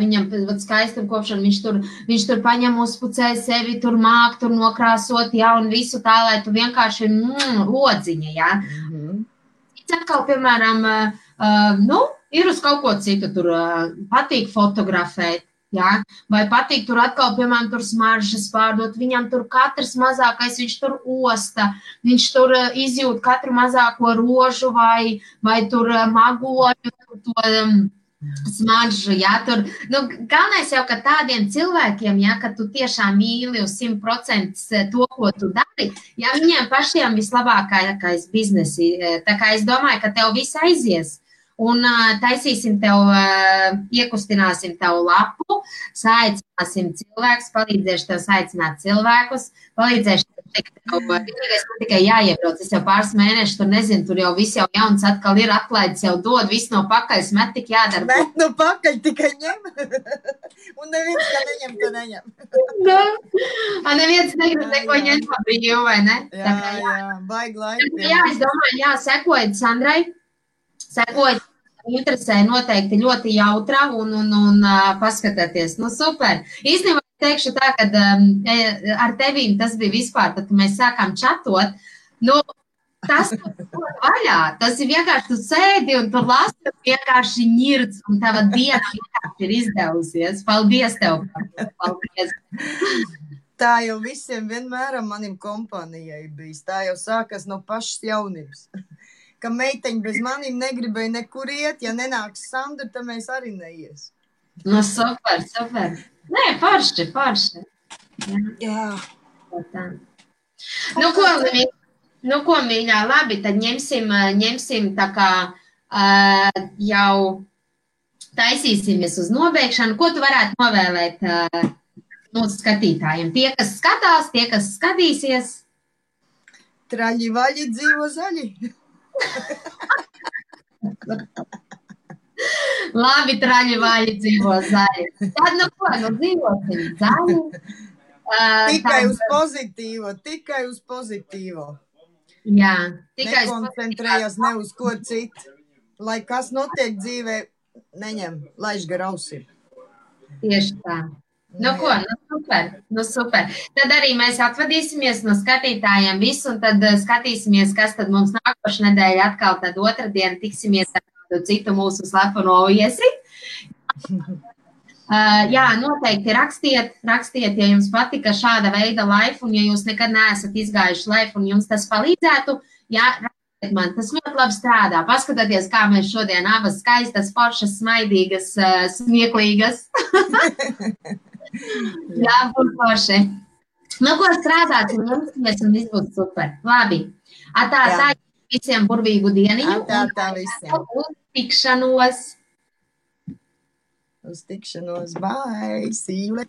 viņam skaistumkopšanu, viņš tur paņem uzpucē sevi, tur māk, tur nokrāsot, jā, un visu tā, lai tu vienkārši odziņa, jā. Cits atkal, piemēram, ir uz kaut ko citu, tur patīk fotografēt, jā, vai patīk tur atkal, piemēram, tur smaržas pārdot, viņam tur katrs mazākais, viņš tur osta, viņš tur izjūt katru mazāko rožu vai tur magoļu, to smaržu, jā, tur, nu, galvenais jau, ka tādiem cilvēkiem, jā, ka tu tiešām mīli uz 100% to, ko tu dari, jā, viņiem pašiem vislabākais biznesi, tā kā es domāju, ka tev viss aizies. Un taisīsim tev, iekustināsim tev lapu, saicināsim cilvēkus, palīdzēšu tev saicināt cilvēkus, palīdzēšu tev, man tikai jāiebrauc, es jau pāris mēnešus, tur nezinu, tur jau viss jau jauns atkal ir atklaids, jau dod, viss no pakaļ, met tik jādara. Met no pakaļ tikai ņem. Un neviens, ka neņem, to neņem. Neviens negrib neko ņemt pa brīvu, vai ne? Jā, baigi laiki. Jā, es domāju, jā, sekojiet Sandrai, sekojiet. Interesē noteikti ļoti jautra un paskatieties. Nu, super. Īstenībā teikšu tā, ka ar tevīm tas bija vispār, tad, kad mēs sākām čatot, nu, tas vaļā, tas ir vienkārši tu sēdi un tu lasi, vienkārši ņirds, un tava diena vienkārši ir izdevusies. Paldies tev. Paldies. Tā jau visiem vienmēr manim kompānijai bijis. Tā jau sākas no pašas jaunības. Ka meiteņi bez manīm negribēja nekur iet, ja nenāks Sandra, tad mēs arī neies. Nu, super. Nē, forši. Jā. Nu, ko, mīļā, labi, tad ņemsim tā kā jau taisīsimies uz nobeigšanu. Ko tu varētu novēlēt mūsu skatītājiem? Tie, kas skatās, tie, kas skatīsies. Traļi vaļi dzīvo zaļi. Labi, traļi vaļi dzīvo zaļi. Tad, nu ko, dzīvosim zaļi. Tikai uz pozitīvo. Jā. Nekoncentrējas ne uz ko citu. Lai kas notiek dzīvē, neņem, laiž gar ausī. Tieši tā. Nu ko, nu super. Tad arī mēs atvadīsimies no skatītājiem visu, un tad skatīsimies, kas tad mums nākošu nedēļu atkal tad otrdien tiksimies ar kādu citu mūsu slepeno viesi. Jā, noteikti rakstiet, ja jums patika šāda veida live, un ja jūs nekad neesat izgājuši live, un jums tas palīdzētu, jā, rakstiet man, tas ļoti labi strādā. Paskatieties, kā mēs šodien abas skaistas, foršas, smaidīgas, smieklīgas. Jā, būs forši. Nu, ko strādāt, un jums un viss būs super. Labi. Tā visiem burvīgu dieniņu. Tā visiem. Uz tikšanos. Bye. See you later.